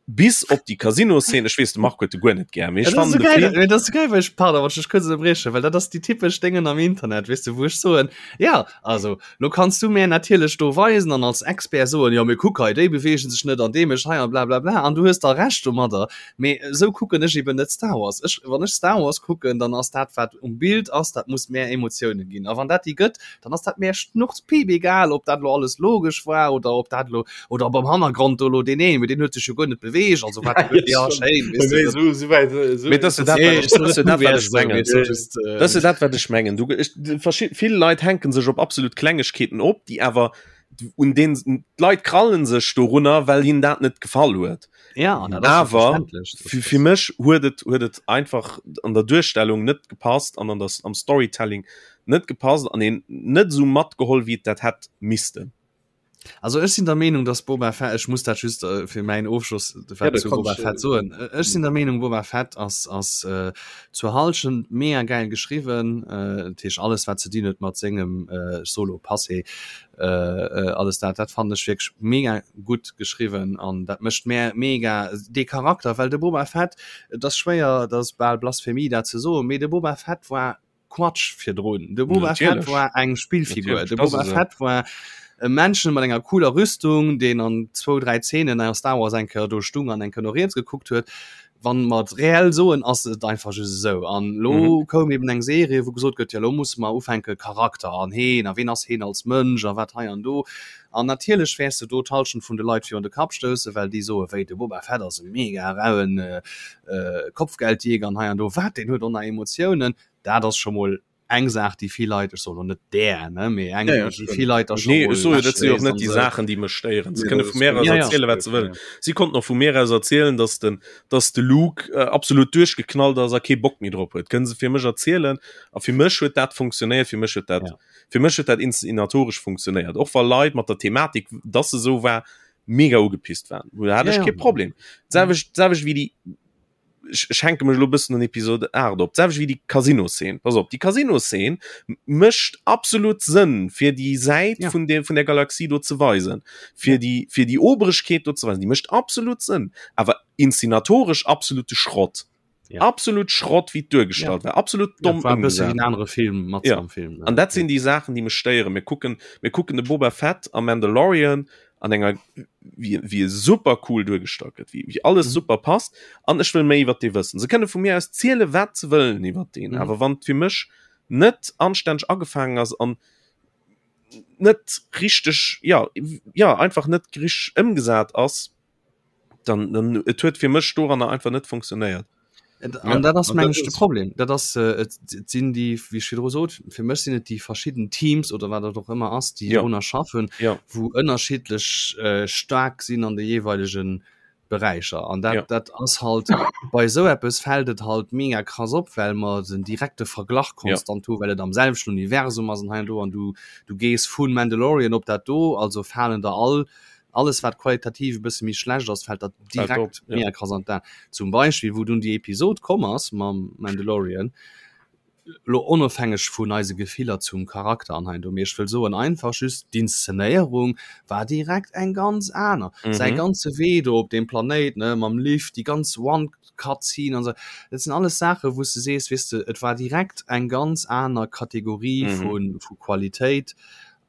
bis op déi Casino-Szene, ech weess de Marc huet de guer net gär, mee ech fannen de Film. Dat ass geil, well ech, pardon, wann ech dech kuerz ënnerbriechen, well dat ass déi typesch Déngen am Internet, weess de, wou ech soen, jo, also lo kanns du mär natierlech do weisen an als Expert soen, jo, mee kuck hei, déi beweegen sech net an dee mécht hei an blablabla an du hues da Recht domadder, mee esou kucken ech eben net Star Wars. Ech, wann ech Star Wars kucken, dann ass dat, wat um Bild ass, dat muss mär Emotiounen ginn a wann dat déi gëtt, dann ass dat mär schnurzpiip egal, ob dat lo alles logesch war oder ob dat lo oder ob am Hannergrond do lo deen een, mee deen huet sech jo guer net beweegt, also wat ja schéin, weess du, dat- So, so weit, so, Mee das ist dat, wat ech- das ist dat, wat ech mengen. Das ist dat wat ech mengen. Du, ech, verschi- vill Leit hänken sech op absolut Klengegkeeten op, déi awer un den d'Leit krallen sech dorunner, well hinnen dat net gefall huet. Ja, an dat ass jo Awer verständlech, dass fir, das- fir mech huet et huet et einfach an der Duerstellung net gepasst an an der, am Storytelling net gepasst an een net esou matgeholl, wéi et dat hätt missten. Also ech sinn der Meenung, dass Boba Fett, ech muss dat just äh, fir mäin Ofschloss Ja, wat da zu kannst Boba du- Fett soen. Äh, Ech sinn der Meenung, Boba Fett ass, ass äh, zur Halschent mega geil geschriwwen. Äh, dat heescht alles wat ze dinn huet mat sengem äh, Solo-Passé, alles dat, dat fannen ech wierklech mega gutt geschriwwen an dat mécht mär mega dee Charakter, well de Boba Fett, et ass schwéier, dat ass bal Blasphemie dat ze soen, mee de Boba Fett war Quatsch virdrun. De Boba Fett Natierlech. war eng Spillfigur. Natierlech, De dat ass Boba esou. Fett war. E Männchen mat enger cooler Rüstung, deen an zwou, dräi Zeenen a Star Wars eng Kéier do stung an eng Kéier no riets gekuckt huet. Wann mer et reell soen, ass et einfach just esou. An elo mhm. koum eben eng Serie, wou gesot gëtt, ja lo musse mer ufänke Charakter an heen a ween ass heen als Mënsch a wat hei an do. An natierlech wäers de do d'Hallschent vun de Leit virun de Kapp stoussen, well déi soe wéi de Boba Fett ass e mega rauen äh, äh, Kopfgeldjäger an hei an do. Wat, deen huet och nach Emotiounen. Dat ass scho mol eng Saach déi vill Leit, ech soen elo net där, ne, mee eng Ja, ja, déi vill Leit da Nee, scho ech mol soe jo, dat si och lächeln net an déi esou. Saachen, déi mech stéieren. Se Nee, kënne dat vu ass mär aus Ja, ja. erzielen, wat se wëllen. Si konnten och vu mär aus erzielen, dass den, dass de Luke äh, absolut duerchgeknallt ass a kee Bock méi drop huet. Kënne se fir mech erzielen. A fir mech huet dat funktionéiert, fir mech huet dat, Ja. fir mech huet dat inszenatoresch funktionéiert. Och wa Leit mat der Thematik, dass se esou war, mega ugepisst waren. Do hat Ja, ech ja. kee Problem. D'selwecht, d'selwecht wéi déi ech hänke mech elo bëssen un Episode 8 op, d'selwecht wéi déi Casino-Szene. Pass op, déi Casino-Szene mécht absolut Sënn, fir déi Säit Ja. vun der, vun der Galaxie do ze weisen, fir déi, fir déi Oberegkeet do ze weisen. Déi mécht absolut Sënn, awer inszenatoresch absolute Schrott. Ja. Absolut Schrott, wéi et duergestallt war. Absolut Ja, domm war e bësse wéi ëmgesat. en anere Film mat Ja. am Film. An dat sinn déi Saachen, déi mech stéieren. Mir kucken, mir kucken de Boba Fett am Mandalorian an enger wie, wie e super cool duergestallt gëtt, wie, wie alles mhm. super passt an ech wëll méi iwwer dee wëssen. Se kënne vu mir aus ziele wat ze wëllen iwwer den, mhm. awer wann fir mech net anstänneg agefaangen ass an net richteg ja ja einfach net grich ëmgesat ass, dann, dann et huet fir mech doranner einfach net funktionéiert. An dat ass meng ech de Problem. Dat ass äh, et sinn déi wéi ech virdru sot, fir mech sinn et déi verschidden Teams oder wat dat och ëmmer ass, déi Ja. drunner schaffen, Ja. wou ënnerschiddlech äh, staark sinn an de jeeweilegen Beräicher. An dat, Ja. dat ass halt bei esou eppes fält et halt mega krass op, well mer den direkte Verglach Ja. konstant hu, well et am selwechten Universum ass an hei an do an du du gees vun Mandalorian op dat do, also falen der all alles wat qualitativ e bësse méi schlecht ass, fält der direkt ja. mega krass an d'Aen. Zum Beispill wou dunn déi Episod komm ass mam Mandalorian, lo onofhängeg vun eise Gefiller zum Charakter an hei an do, mee ech wëll soen einfach just d'Inszenéierung war direkt eng ganz aner. Mhm. Säi ganze Wee do op deem Planéit, ne, mam Lift, déi ganz One-Cut-Scene an esou, dat sinn alles Saache wou s de sees, weess de, et war direkt eng ganz aner Kategorie Mhm. vu vu Qualitéit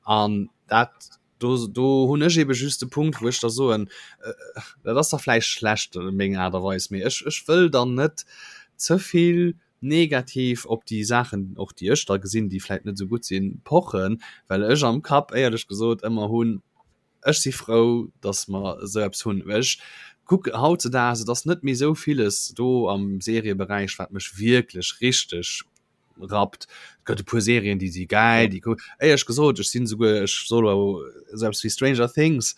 an dat do, do hunn ech ebe just de Punkt, wou ech da soen, äh, dat ass da vläicht schlecht meng Aart a Weis, mee ech, ech wëll dann net ze vill negativ op déi Saachen, och déi ech da gesinn, déi vläicht net esou gutt sinn, pochen, well ech am Kapp éierlech gesot ëmmer hunn, ech si frou, datt mer esou eppes hunn. Well ech kuck hautzedaags, et ass net méi esou villes do am Serieberäich, wat mech wierklech richteg rappt. Et gëtt e puer Serien, déi si gäil, déi cool. Éierlech gesot, ech sinn esouguer, ech soll elo selbst wéi Stranger Things,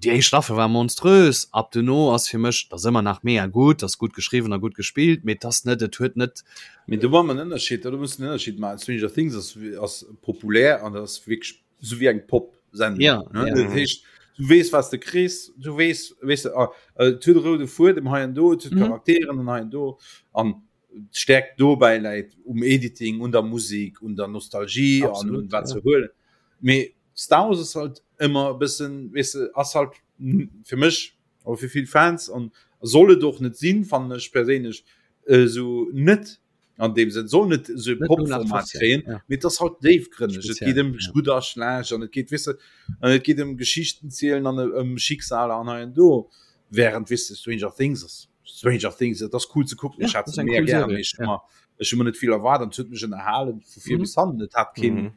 déi éischt Staffel war monströs, ab duerno ass fir mech, dat ass ëmmer nach mega gutt, ass gutt geschriwwen a gutt gespillt, mee et ass net, et huet net. Mee do maache mer en Ënnerscheed, do muss en Ënnerscheed maachen. Stranger Things ass, ass populär an dat ass wierklech esou wéi eng Pop-Sendung. Ja, ne? ja. Dat heescht, du weess, wat s de kriss, du weess, weess de, ah, et huet e roude Fuedem hei an do, et huet Mhm. Charakteren an hei an do an d'Stärkt dobäi läit um Editing, un der Musik, un der Nostalgie an un wat ze huelen. Mee Star Wars ass halt ëmmer e bëssen, weess de, ass halt fir mech oder fir vill Fans an soll et och net sinn, fannen ech perséinlech, esou net an deem Sënn, soll net esou e Pop-Format kréien, mee et ass halt déifgrënneg. Et geet ëm gutt a schlecht an et geet, weess de, an et geet ëm Geschichten zielen an ëm Schicksaler an hei an do. Während, weess de, Stranger Things ass Stranger Things, et ass cool ze kucken, ech hat se mega gär, mee ech hu mer, ech hu mer net vill erwaart an et huet mech ënnerhalen vu vir bis hannen. Et hat keen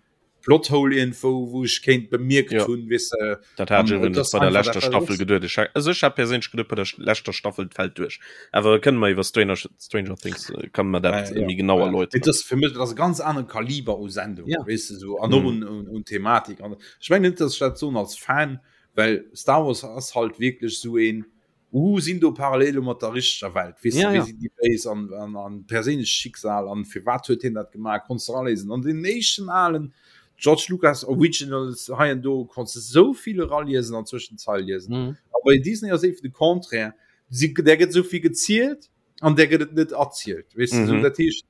Plothole iergendwou, wou ech kéint bemierkt hunn, weess de. Dat hat ech An et iwwregens ass bei der einfach leschter dat, wat et Staffel ass. geduet. Ech hat, also ech hat perséinlech geduet, bei der leschter Staffel, et fält duerch. Awer kënne mer iwwer Stranger, Stranger Things, kann mer dat Ja, méi genau ja. erläuteren. Et ass fir mech, dat ass e ganz anere Kaliber u Sendung, Ja. weess de, sou, an och un, un, un Thematik. An ech mengen net, datt ech dat soen als Fan, well Star Wars ass halt wierklech sou een, Uh, sinn do Parallele mat der richteger Welt? Weess Ja, de, wéi ja. sinn déi Béis an, an, an perséinlecht Schicksal an firwat huet hien dat gemaach, konns de eraléisen. An den éischten alen George Lucas Originals hei an do konns de sou vill eraliesen an zwëschen d'Zeil liesen. Mhm. A bei Disney ass eben de Contraire, si, där gëtt sou vill gezielt an där gëtt et net erzielt, weess de. Mhm. Sou, dat heescht,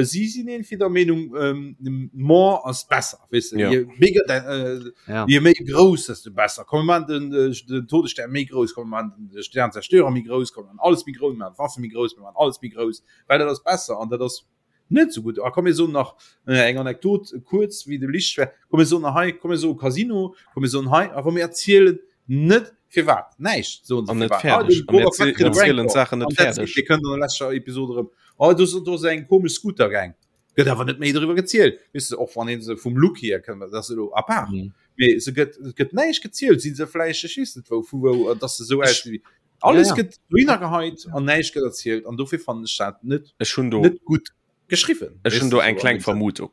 si sinn irgendwie der Meenung, ähm, more ass besser, weess de, Ja. je bigger, äh, Ja. Je méi grouss, desto besser. Komm, mir maachen den, äh, den Todesstern méi grouss, komm, mir maachen den Sternzerstörer méi grouss, komm, mir maachen alles méi grouss, mir maachen d'Waffe méi grouss, mir maachen alles méi grouss, well dat ass besser an dat ass. Net esou gutt. A komm mir soen nach eng Anekdot kuerz wéi de Lichtschwert, komm mir soen nach hei, komm mir soe Casino, komm mir soen hei, awer mir erzielen net firwat, näischt soen se An net firwat. Ah, fäerdeg. de An mir Boba Fett kritt e erzielen Rancor d'Saachen net an that's it. fäerdeg. Dir kënnt an der leschter Episod erëm, oh do do ass eng komesch Scooter-Gang. Gëtt awer net méi doriwwer gezielt. Weess de, och wann ee se vum Look hier kënnt, dat ass elo à part. Mhm. Mee se gëtt, et gëtt näischt gezielt. Si se vläicht, ech weess net wou, vu wou, dass se esou aus wéi. Alles Ja, ja. gëtt dohinner geheit an näischt gëtt erzielt an dofir fannen ech dat net Ech hunn do net gutt geschriwwen. Ech hunn do eng kleng Vermutung.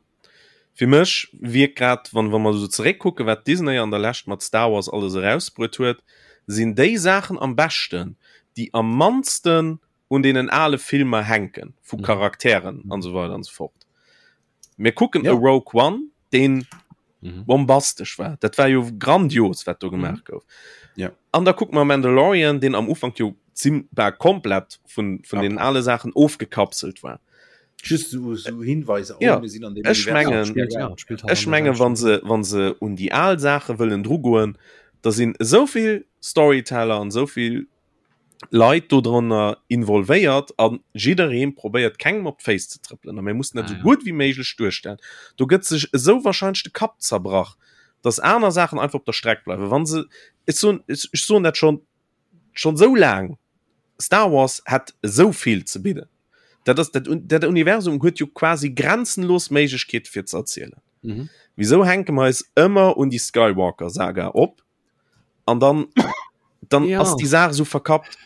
Fir mech wierkt grad, wann wa mer esou zeréckkucken, wat Disney an der Lescht mat Star Wars alles erausbruet huet, sinn déi Saachen am beschten, déi am mannsten un deenen ale Filmer hänken, vu Charakteren an esou weider an esou fort. Mir kucken Ja. e Rogue One, deen Mhm. bombastesch war. Dat war jo grandios, wat do gemaach gouf. Ja. An da kucke mer Mandalorian, deen am Ufank jo zim war komplett vun, vun Ja. den ale Saachen ofgekapselt war. Just so, so Hinweiser, oh, Ja. mir sinn an dem Ech Universum. mengen- Spielt, ja, spielt halt Ech an der menge wann selwechten- se wann se un déi al Saache wëllen drugoen, da sinn esouvill Storyteller an esouvill Leit dodrënner involvéiert a jidderee probéiert kengem op d'Féiss ze trëppelen a mir mussen dat Ah, esou ja. gutt wéi méiglech duerstellen. Do gëtt sech esou wahrscheinlech de Kapp zerbrach, datt aner Saachen einfach op der Streck bleiwen. Wa se, ech soen, ech soen dat schonn schonn esou laang, Star Wars hätt esou vill ze bidden. Dat ass dat, dat Universum huet jo quasi grenzenlos Méiglechkeete fir ze erzielen. Mhm. Wisou hänke mer eis ëmmer un déi Skywalker-Saga op? An dann, dann Ja. ass déi Saach esou verkappt.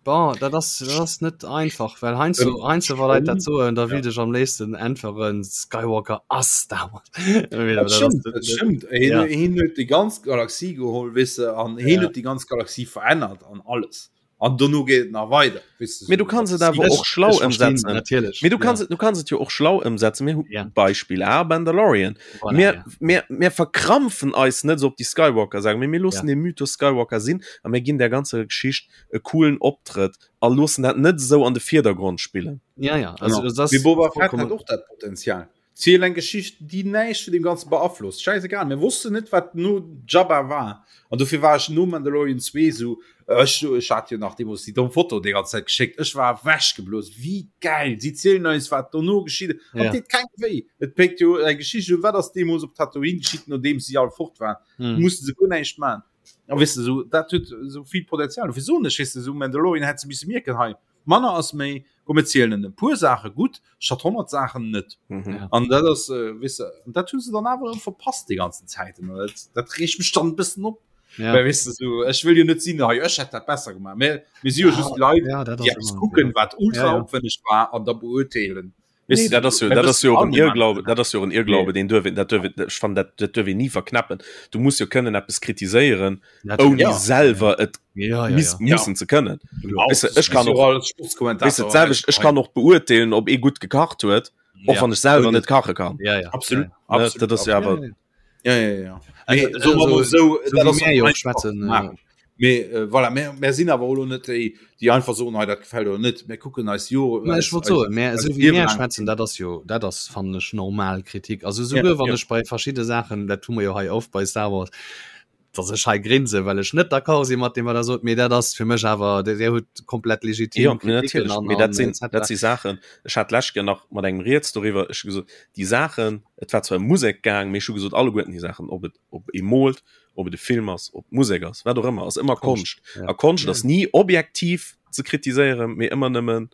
Bon, dat ass, dat ass net einfach, well heiansdo, Ähm, heiansdo wa Leit dat schon, soen, da ja. willt ech am léifsten äntweren, Skywalker ass Star Wars. Mee Dat dat ass stimmt, net, dat net, stimmt. Hien, ja. hien huet déi ganz Galaxie geholl, weess de, an hien Ja. huet déi ganz Galaxie verännert an alles. An dono geet et nach weider, weess de, Mee du sou, kanns dat et awer Sith. och schlau Ech verstinn, ëmsetzen. natierlech, Mee du kanns ja. et, du kanns et jo och schlau ëmsetzen. Mir hu Ja. Beispill A, Mandalorian. Voilà, Mir, ja. mir, mir verkrampfen eis net esou op déi Skywalker-Saga, mee mir loossen Ja. de Mythos Skywalker sinn a mir ginn där ganzer Geschicht e coolen Optrëtt a loossen dat net esou an de Virdergrond spillen. Ja, ja, also Genau. das ass Mee Boba Fett hat vollkommen. och dat Potenzial. Ziel eng Geschicht, déi näischt vun deem Ganze beaflosst. Schäisegal, mir wossten net, wat no Jabba war. An dofir war ech no Mandalorian 2 esou, ech, ech hat jo nach deemools déi domm Foto déi ganz Zäit geschéckt, ech war ewechgeblosen, wéi gäil! Si zielen eis, wat dono geschitt ass. An Ja. et deet kengem wéi. Et péckt jo eng Geschicht un, wat ass deemools op Tatooine geschitt, nodeems si all fort waren. Hm. Musse se guer näischt maachen. A weess de, esou, dat huet esou vill Potenzial. Dofir soen ech, weess de, esou Mandalorian hätt se misse mierken, hei, Manner ass méi, komm mir zielen e puer Saache gutt statt 100 Saachen net. Mhm. An dat ass äh, weess de, an dat hu se dann awer erëm verpasst déi ganzen Zäiten. An dat, dat reegt mech dann e bëssen op. Ja. Well weess de, sou, ech wëll jo net sinn, hei ech hätt dat besser gemaach. Mä mir si jo Ja, just Leit, ja, dat déi ass eppes ëmmer, kucken, ja. wat ultra Ja, ja. opwenneg war an da beurteelen. Weess Nee, de, dat ass jo, mir dat ass wëssen jo och all en de Mann. Irrglaube, dat ass jo och en Irrglaube, deen duerf een, dat duerf een, ech fannen, dat, dat duerf een ni verknäppen. Du muss jo kënnen eppes kritiséieren, Natürlich. ouni Ja. selwer et Ja, ja, miss, ja. mussen ze kënnen. Genau. Weißt du, ech kann Mir si och- jo all Weißt du, Sportskommentatoren. d'selwecht, ech kann och beurteelen, ob ee gutt gekacht huet, och Ja. wann ech selwer net kache kann. Ja, ja. Absolut. Ja, Ne, Absolut. dat ass jo absolut. awer Ja, ja, ja. Also, Mee, soe mer mol also, sou, so dat wéi ass mir jo och einfach schwätzen, ze maachen. Mee äh, voilà, mir, mir sinn awer och lo net déi, déi einfach soen, hei dat gefält oder net. Mir kucken eis jo Ma ech wollt soen, mä eis esou wéi Liewe mir laang. schwätzen, dat ass jo, dat ass fannen ech normal Kritik. Also souguer Ja, wann ja. ech bei verschidde Saachen, dat hu mer jo hei oft bei Star Wars, dass ech hei grinse, well ech net d'accord si mat deem wat der sot, mee dat ass fir mech awer, der der hutt komplett legitim Ja, Kritiken natierlech. an, Mee an dat sinn, etc. dat si Saachen, ech hat d'lescht Kéier nach mat engem rieds doriwwer, ech hu gesot, déi Saachen, et war zwar ëm Musek gaang, mee ech hu gesot, alleguerten déi Saachen, ob et, ob ee moolt, ob et e Film ass, ob Musek ass, wat och ëmmer, ass ëmmer Konscht. Ja. A Konscht ass ni objektiv ze kritiséieren, mee ëmmer nëmmen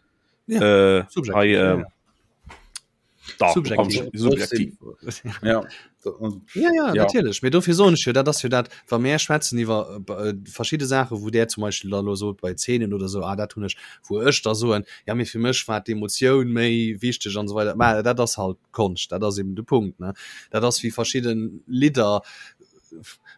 Ja, äh, subjektiv, hei, ja, äh, ja. da, Subjektiv. subjektiv. Ja. Und, Ja, ja, Ja. natierlech. Mee dofir soen ech jo, dat ass jo dat, wa mär schwätzen iwwer äh, verschidde Saachen, wou där zum Beispill da lo sot bei Zeenen oder sou, ah dat hunn ech, wou ech da soen, ja mee fir mech war d'Emotioun méi wichteg an esou weider. Mä dat ass halt Konscht, dat ass eben de Punkt, ne. Dat ass wéi verschidden Lidder,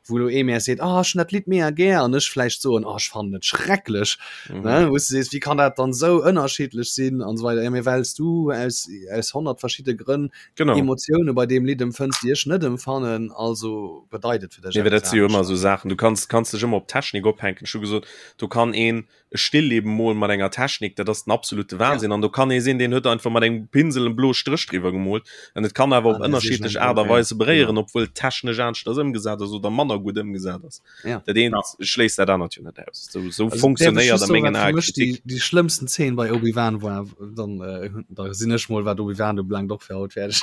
wou lo ee mär seet, ah ech hunn dat Lidd mega gär an ech vläicht soen, ah ech fannen et schrecklech, Mhm. ne, wou s du sees, wéi kann dat dann esou ënnerschiddlech sinn an esou weider. Ja mee well s du aus aus 100 verschidde Grënn Genau. Emotioune bei deem Lidd empfënns, déi ech net empfannen, also bedeit et fir dech Nee, well eppes dat si jo ëmmer anescht. esou Saachen, du kanns kanns dech ëmmer op Technik ophänken. Ech hu gesot, do kann een e Stillleben molen mat enger Technik, dat ass den absolute Wahnsinn. An do kann ee sinn, deen huet einfach mat engem Pinsel en bloe Stréch driwwer gemoolt. An et kann awer op Ah, dat ass ënnerschiddlech eng Aart a ja. Weise beréieren, obwuel et technesch aneschters ëmgesat ass. ëmgesat ass oder manner gutt ëmgesat ass. Ja. Dat eent ja. schléisst dat anert jo net aus. So, so also, funktionéiert a mengen Ae Kritik. Déi, déi schlëmmsten Zeen bei Obi-Wan war, dann, äh, da sinn ech mol wat Obi-Wan ubelaangt och fir haut fäerdeg.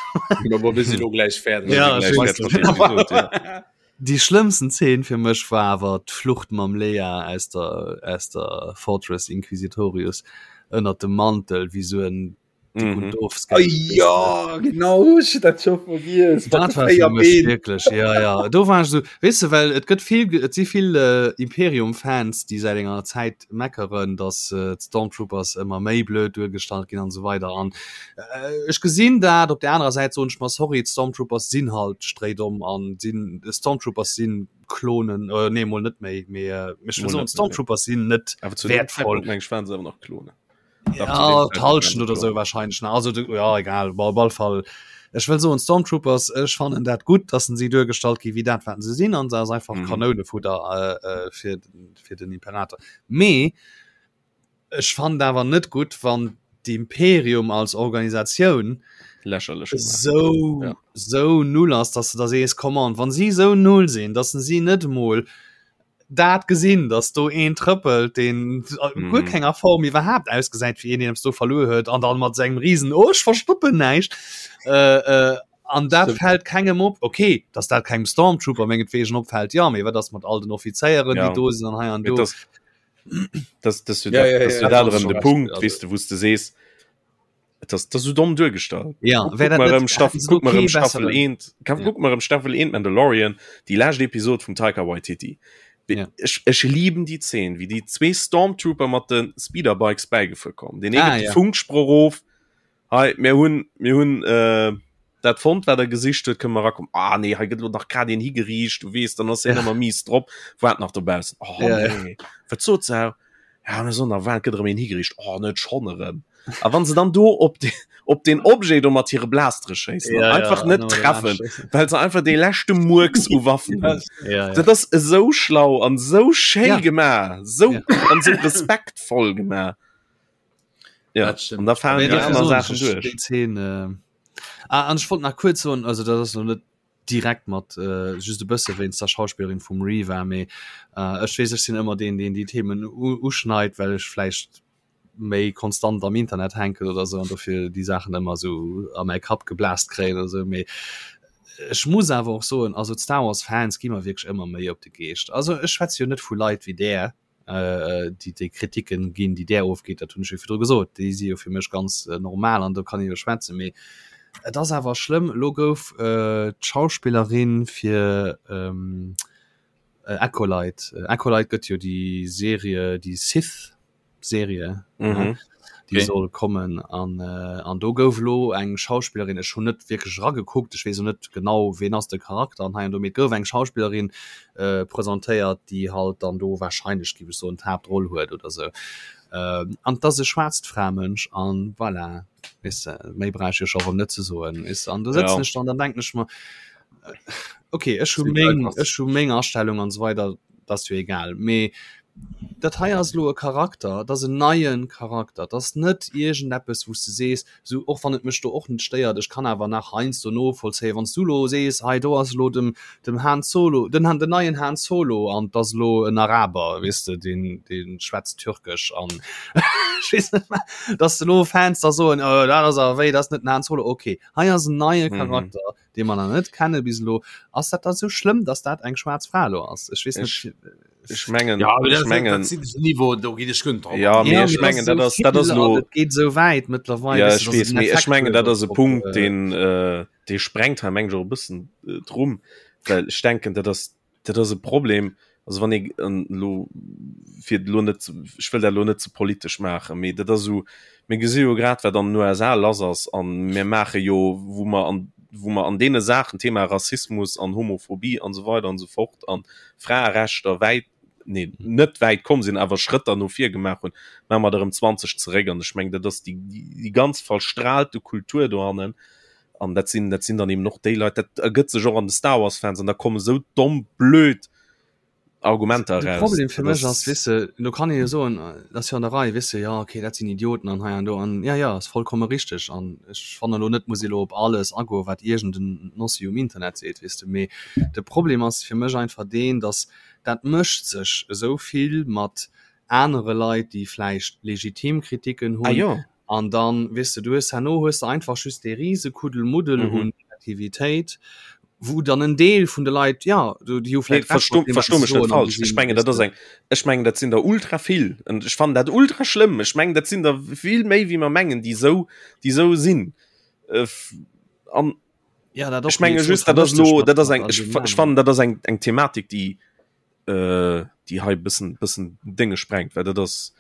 Ja, wir sinn lo gläich fäerdeg. Ja, ech weess net. Déi schlëmmsten Zeen fir mech war awer d'Flucht mam Leia aus der, aus der Fortress Inquisitorius ënnert dem Mantel, wéi sou en Dick und doof Ah, ja, genau, ech hat dat scho vergiess. Dat war fir mech wierklech, ja, ja. Do war ech sou, weess de, well et gëtt vill, et si vill äh, Imperium-Fans, déi säit enger Zäit meckeren, datt äh, d'Stormtroopers ëmmer méi blöd duergestallt ginn an esou weider. An äh, ech gesinn dat, op der anerer Säit soen ech mer, sorry, d'Stormtroopers sinn halt stréidomm an sinn, Stormtroopers sinn Klonen, äh, nee, mol net méi, mee äh, ech wëll soen, Stormtroopers sinn net Awer zu deem wertvoll. Zeitpunkt, meng ech, waren se awer nach Klonen. Ja, d'Halschent oder sou wahrscheinlech ne also du, ja egal op alle Fall ech wëll soen Stormtroopers ech fannen dat gutt dass se duergestallt gi wéi dat wat se sinn an se ass einfach mhm. Kanounefutter äh, äh, fir fir den Imperator mee ech fand awer net gutt wann d'Imperium als Organisatioun lächerlech sou ja. sou null ass dass du da sees come on wann si sou null sinn dass si net mol dat gesinn, dass do een trëppelt, deen a guer mm. kenger Form iwwerhaapt ausgesäit wéi een, deen eppes do verluer huet an dann mat sengem riesen oh, ech verstoppen näischt. Äh, äh, an dat fällt kengem op. Okay, dass dat kengem Stormtrooper mengetwegen opfällt, ja, mee wat ass mat all den Offizéieren, ja. déi do sinn an hei an do. Das, das, das, ja, ja, das, ja, ja, das, das, de Punkt, weißt du, wous de sees, Et ass, dat ass sou domm duergestallt. Ja, Guck wär dat mal net erëm Staffel, hätten se guck mal okay erëm Staffel besseren. 1, kann, Ja. guck mal erëm Staffel 1 Mandalorian, déi lescht Episod vum Taika Waititi. Wie- Ja. Ech, ech lieben déi Zeen, wéi déi zwee Stormtrooper mat de Speederbikes bäigefuer kommen. Deen ee Ah, gëtt de ja. Funksproch of, Hei, mir hunn, mir hunn äh, dat fonnt, wat der gesicht huet, kënne mer erakommen. Ah nee, hei gëtt elo nach grad een higeriicht, du weess, dann ass hien Ja. ëmmer mies drop, waart nach dobaussen. Oh Ja, ja. nee, wat sot se? Ja, mir soen nach, wat gëtt erëm een higeriicht? Oh, net schonn erëm. A wann se dann do op de, op den Objet do mat hire Blastere schéissen Ja, an einfach ja, net an treffen, well se einfach dee leschte Murks u Waffen hunn. Ja, ja. Dat ass esou schlau an esou schéi Ja. gemaach, sou Ja. an sou respektvoll gemaach. Ja, Dat stimmt. an da falen Nee, déi dofir aner soen Saachen ech, duerch. déi Zeen, äh, ah, an ech wollt nach kuerz soen, also dat ass lo net direkt mat äh, just e bësse wéinst der Schauspillerin vum Reva, mee äh, ech weess, ech sinn ëmmer deen, deen déi Themen uschneit, well ech vläicht méi konstant am Internet hänken oder sou an dofir déi Saachen ëmmer sou a mäi Kapp geblast kréien oder sou. Mee ech muss awer och soen, also d'Star Wars Fans gi mer wierklech ëmmer méi op de Geescht. Also ech schwätze jo net vu Leit wéi där, äh, déi déi Kritiken ginn, déi där ofgeet, dat hunn ech jo virdru gesot, déi si jo fir mech ganz äh, normal an do kann ee jo schwätzen. Mee et ass awer schlëmm, elo gouf äh, d'Schauspillerin fir ähm, äh, Acolyte, äh, Acolyte gëtt jo déi Serie, déi Sith Serie mhm. déi okay. soll kommen an äh, an do gouf lo eng Schauspielerin ech hun net wierklech ragekuckt ech weess net genau ween ass de Charakter an hei an do mee gouf eng Schauspielerin äh, presentéiert déi halt dann do wahrscheinlech géif ech soen d'Haaptroll huet oder sou äh, an dat ass e schwaarzt Framënsch an voilà weess de méi brauch ech jo scho rëm net ze soen weess de an do sëtzen ja. ech dann dann denken ech mer äh, okay ech hu meng ech hu meng Astellung an sou weider dat ass jo egal mee dat hei ass elo e Charakter, dat ass en neie Charakter, dat ass net iergendeppes wou s de sees, esou och wann et mech do och net stéiert, ech kann awer nach heiansdo novollzéien, wann s du elo sees, hei do ass elo dem dem Han Solo, den Han den neien Han Solo an 't ass elo en Araber, weess de, deen dee schwätzt Türkesch an ech weess net wat, datt s de elo Fans da soen, oh dat ass awer wéi, dat ass net den Han Solo. Okay, hei ass en neie Charakter, dee mer nach net kenne bis elo. Ass dat da sou schlëmm, datt dat eng schwaarz Fra elo ass? Ech weess net. Ech mengen, ja, ech mengen, Niveau do gi ech gënnt ja, mee ech mengen dat ass dat ass lo geet sou wäit mëttlerweil. Ja, ech weess, mee ech mengen dat ass e Punkt, deen äh, dee sprengt hei meng ech och e bëssen äh, d'Rumm, well ech denken dat ass dat ass e Problem, also wann ee elo fir elo net ech wëll dat elo net ze politesch maachen, mee dat ass esou, mir gesi jo grad wat an den USA lass ass an mir maache jo wou mer an wou mer an deene Saachen, Thema Rassismus an Homophobie an esou weider an esou fort an Fraerechter wäit, nee net wäit komm sinn, awer Schrëtter no vir gemaach hunn, maache mer der erëm 20 zeréck an ech mengen dat ass déi déi ganz verstrahlte Kultur dohannen an dat sinn dat sinn dann eben och déi Leit, dat ergëtt sech och an de Star Wars Fans an da komme sou domm blöd. Argumenter De eraus. Problem fir Dat mech ass, ass weess de, do kann ee jo soen, dat ass jo an der Rei, weess de, jo okay, dat sinn Idioten an hei an do an ja, ja, ass vollkomme richteg an ech fannen elo net, muss ee elo op alles agoen, wat iergend en Nossi um Internet seet, weess de. Mee de Problem ass fir mech einfach deen, datt dat mécht sech esou vill mat anere Leit, déi vläicht legitim Kritiken Ah hunn, jo. An dann, weess de, du hues herno hues de einfach just dee rise Kuddelmuddel Mhm. un Negativitéit, wou dann en Deel vun de Leit, ja, du, déi hu Nee, vläicht Recht versto mat deem, wat versto se mech net soen an falsch. Ech gesinn, mengen, weess dat ass de. eng, ech mengen, dat sinn der ultra vill. An ech fannen dat ultra schlëmm. Ech mengen, dat sinn der vill méi, wéi mer mengen, déi esou, déi esou sinn. Äh, an Ja, dat ech och, mee menge ech soen, just, dat ass vermëscht sech elo, mat, dat ass mat eng, all ech, deenen ech aneren. fannen, dat ass eng, eng Thematik, déi, äh, déi hei bëssen, bëssen Dénge sprengt, well dat ass,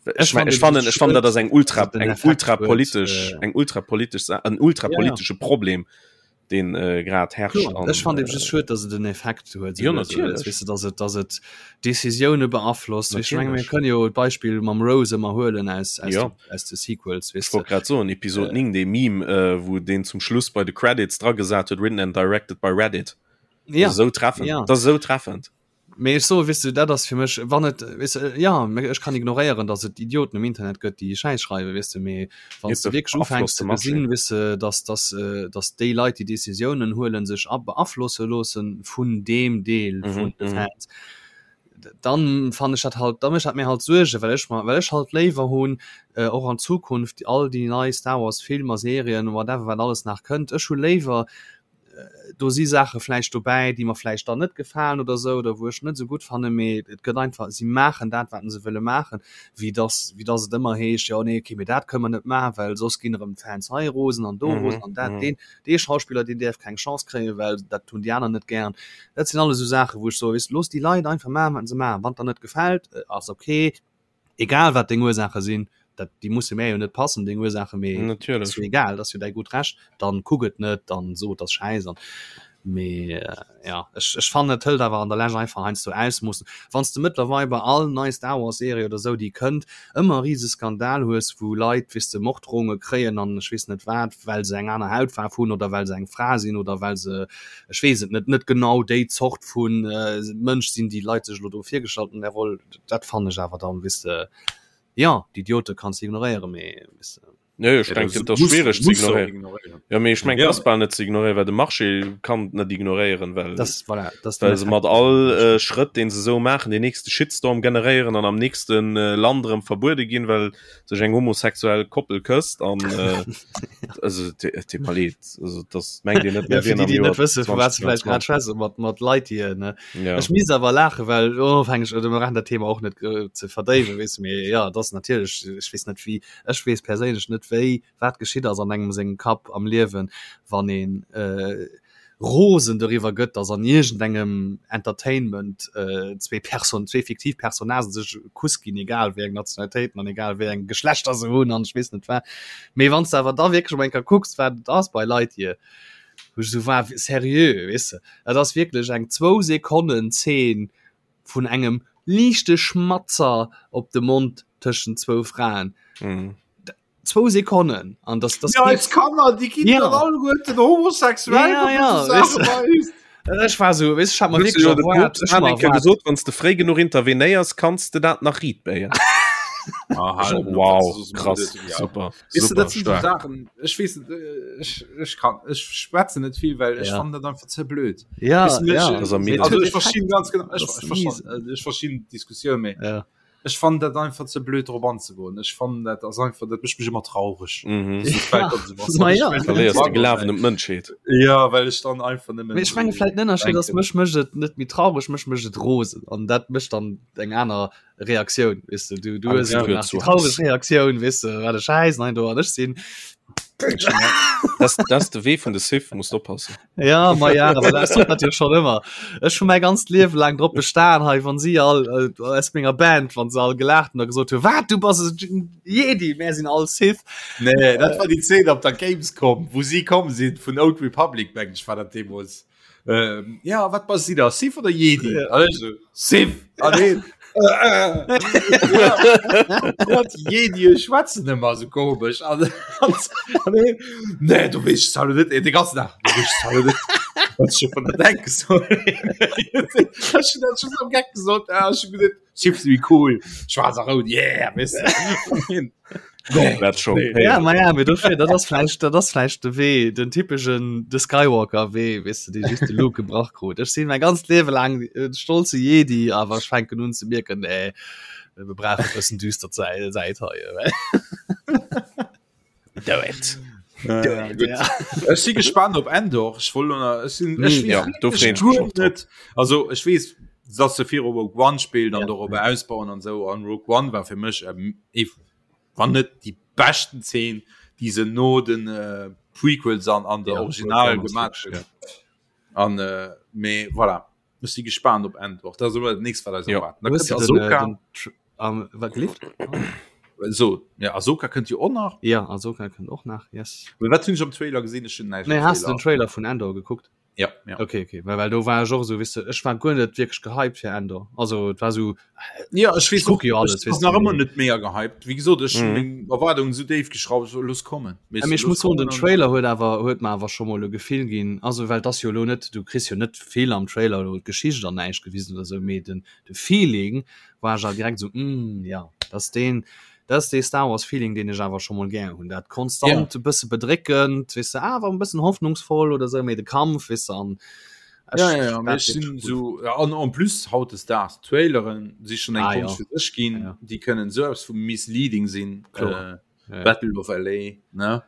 Ech ech mein, fannen ech fannen, ech fannen, dat ass eng ultra, den eng Effekt ultra huet, politesch, äh, eng ultra politesch, Sa- en ultra politesche Problem, deen äh, grad herrscht. Kloer, An, ech fand eben just äh, schued, dass et en Effekt huet, Jo, esou also, natierlech. weess de, dass et, dass et Decisioune beaflosst. Ech menge mir Natierlech. kënne jo d'Beispill mam Rose ëmmer huelen aus, aus, Ja. de, aus de Sequels, weess Ech wollt de. grad soen, Episode 9, dee Meme, äh, wou deen zum Schluss bei de Credits dra gesat huet, written and directed by Reddit. Ja. Dat ass esou treffend. Ja. Dat ass esou treffend. Mee ech soe, weess de, dat ass fir mech, wann et, weess de, jo, mee ech kann ignoréieren, datt et Idioten um Internet gëtt, déi Schäiss schreiwen, weess de, mee wann s de wierklech ufänks ze gesinn, weess de, datt, datt, datt déi Leit, déi Decisiounen huelen, sech a beaflosse loosse vun deem Deel vun de Fans, dann fannen ech dat halt, da mécht dat mir halt Suergen, well ech mer, well ech halt léiwer hunn, och an Zukunft all déi nei Star Wars Filmer, Serien, whatever, wat alles nach kënnt, ech hu léiwer, do si Saache vläicht dobäi, déi mer vläicht dann net gefalen oder esou oder wou ech net esou gutt fannen, mee et gëtt einfach, si maachen dat, wat se wëlle maachen, wéi dass, wéi dass et ëmmer heescht, jo nee, okay, mee dat kënne mer net maachen, well soss ginn erëm d'Fans hei rosen an do rosen an dat, deen, dee Schauspiller, deen däerf keng Chance kréien, well dat hunn déi aner net gären. Dat sinn alles esou Saachen, wou ech soe, weess de, looss déi Leit einfach maachen, wat se maachen. Wann et der net gefält, ass okay. egal wat deng Ursaache sinn, dat déi musse mär jo net passen deng Ursaache, mee Natierlech. ass jo egal, dat ass jo däi gutt Recht, dann kuck et net, dann so et ass schäiss an mee ja ech ech fannen et hëlt awer an der Lescht einfach heiansdo Ausmoossen, wann s de mëttlerweil bei all nei Star Wars Serie oder sou déi kënnt ëmmer e rise Skandal hues wou Leit weess de Morddrohunge kréien an ech weess net wat, well se eng aner Hautfaarf hunn oder well se eng Fra sinn oder well se ech weess et net net genau déi Zort vu Mënsch sinn déi Leit sech elo do virgestallt hunn an där Roll. Dat fannen ech awer dann, weess de, jo, d'Idiote kanns de ignoréieren, mee weess de. Nee, ech denken, et ass schwiereg ze ignoréieren. Jo, mee ech mengen, et ass bal net ze ignoréieren, well de Marché kann et net ignoréieren, well Das, voilà, das den well se Effekt, mat all Schrëtt, dee se esou maachen, deen nächste Shitstorm generéieren an am nächste Land erëm verbuede ginn, well sech eng homosexuell Koppel kësst an also et deet mer leed, also das mengt Dir net Ja, mehr fir wien déi, am déi Joer net wësse vu wat se vläicht grad 2022. schwätzen, mat, mat Lightyear, ne? Ja. Ech misst awer laachen, well onofhängeg, oder mir brauchen dat Thema och net äh, ze verdéiwen, weess de, mee ja, et ass natierlech, ech weess net wéi, ech weess perséinlech net wéi, wat geschitt ass an engem sengem Kapp am Liewen, wann een äh, rosen doriwwer gëtt, dass an iergendengem Entertainment äh, zwee Person, zwee fiktiv Personnagen sech e Kuss ginn, egal wéi eng Nationalitéiten an egal wéi eng Geschlechter se hunn an ech weess net wat. Mee wann s de awer da wierklech emol eng Kéier kucks, wat et ass bei Lightyear, wou ech esou war, seriö, weess de, dat ass wierklech eng zwou Sekonnen Zeen vun engem liichte Schmatzer op de Mond tëschent zwou Fraen. Mhm. Zwou Sekonnen an das, das Ja, eis Kanner, déi ginn Ja. dann alleguerten homosexuell. Ja, ja, wann du weißt so Saache weist. Ech war so, weißt, ich hab mir Hues du wirklich jo de erwaart, Poopst ech hab hat mir eng Kéier erwaart. gesot, wann s de fréi genuch intervenéiers, kanns de dat nach riit béien. Ah, halt, Wow, das ist krass, ja. super, Weißt du, super dat sind so stark. Sachen, ech weess net, äh, ech, ech kann, ech schwätze net vill, well ech Ja. fannen dat einfach ze blöd. Ja, Weißt du, ja. ech- Das am Also Huet ech verstinn ganz genau, ech, Das ech ist verstinn, äh, ech verstinn d'Diskussioun, mee Ja. Ech fannen dat einfach ze blöd drop anzegoen. Ech fannen dat ass einfach, dat mécht mech ëmmer traureg. Mhm. Ma ja. Verléiers de Glawen un d'Mënschheet. Ja, well ech dann einfach nëmmen. Mee ech menge vläit den Ënnerscheed ass, mech mécht et net méi traureg, mech mécht et rosen an dat mécht dann eng aner Reaktioun, weess de. Du, du hues Angst elo gehört nach zu déi traureg Hass. Reaktioun, weess de, wat e Schäiss, nein do an ech sinn. Das, das de Wee vun de Sith, musst oppassen. Ja, ma ja, aber das dat jo schon ëmmer. Ech hun mäi ganzt Liewe laang drop bestan hei, wann si all äh, aus menger Band, wann se all gelaacht hun a gesot hu wat du bass e Jedi, mär sinn all Sith. Nee, dat war déi Zeen op der Gamescom, wou si komm sinn vun Old Republic, mengen ech war dat deemools. Ähm, ja, wat bass si da, Sith oder Jedi? Ja. An ech so, Sith! An heen, äh, äh. Ja, déi Jedie schwätzen ëmmer esou komesch. An, an, an heen, nee, du weess es halt net, de ganzen Dag, du weess es halt net. Wat ech vun der denke soll. Ech hunn dat just am Geck gesot, ah, ech hunn gesot, Chips wie cool, schwaarz a rout, yeah, weess de. Dat schon. Nee. Ja, ma ja, mee dofir, dat ass vläicht, dat ass vläicht de Wee, den typeschen de Skywalker-Wee, weess de, dee just de Luke gebrach krut. Ech sinn mäi ganzt Liewe laang en stolze Jedi, awer ech fänken un ze mierken, nee, mir brauchen e bëssen düster Säit, Säit hei. Do it. Ja, gut. Ja. Ech si gespannt op Endor. Ech wollt elo- ech sinn- ech Mm, weess ja, wirklich do freeën ech mech guer och drop. net. Also ech weess, dass se viru Rogue One spillt an Ja. dorobber ausbauen an sou. An Rogue One war fir mech ähm, ee wann net déi beschten Zeen, déi se no den äh, Prequels an an der Ja, Original Rogue One ass gemaach wirklich, hunn. An äh, mee voilà. Ech si gespannt op Endor. Dat ass elo dat nächst, wat eis Ja. erwaart. Da Hues kënnt du den, äh, Ahsoka. den Tr- am- wat gelift? So, ja, Ahsoka kënnt jo och nach. Ja, Ahsoka kënnt och nach, yes. Mee wat hunn ech am Trailer gesinn? Ech hunn näischt Nee, am has du den Trailer. Trailer vun Endor gekuckt? Ja, ja. Okay, okay. Well, well do war ech och esou, weess de, ech war guer net wierklech gehypt fir Endor. Also et war esou, Ja, ech weess Ech kucke jo och, alles, ech weess ass nach du, ëmmer mee- net mega gehypt. Wéi gesot, ech hunn Mhm. meng Erwaardungen esou déif geschrauft, so, looss kommen. Weess Ja, du, mee ech looss muss soen, den kommen an- Trailer huet awer huet mer awer scho mol e Gefill ginn. Also well et ass jo elo net, du kriss jo net vill am Trailer elo d'Geschicht an näischt gewisen oder sou, mee den de Feeling war ech awer direkt sou, mm, ja, dat ass deen, dat ass dee Star Wars Feeling, deen ech awer scho mol gär hunn. Dat konstant e bësse bedréckend, weess de, awer e bëssen hoffnungsvoll oder sou, mee de Kampf, weess de, an ech, Ja, ja, ja, mee dat ech wierklech sinn cool. sou, ja, an en plus hautdesdaags, Traileren si schonn eng Ah, ja. Konscht fir sech ginn, Ja, ja. déi kënnen esou eppes vu misleading sinn. Kloer. Äh, Ja, ja. Battle of LA, ne?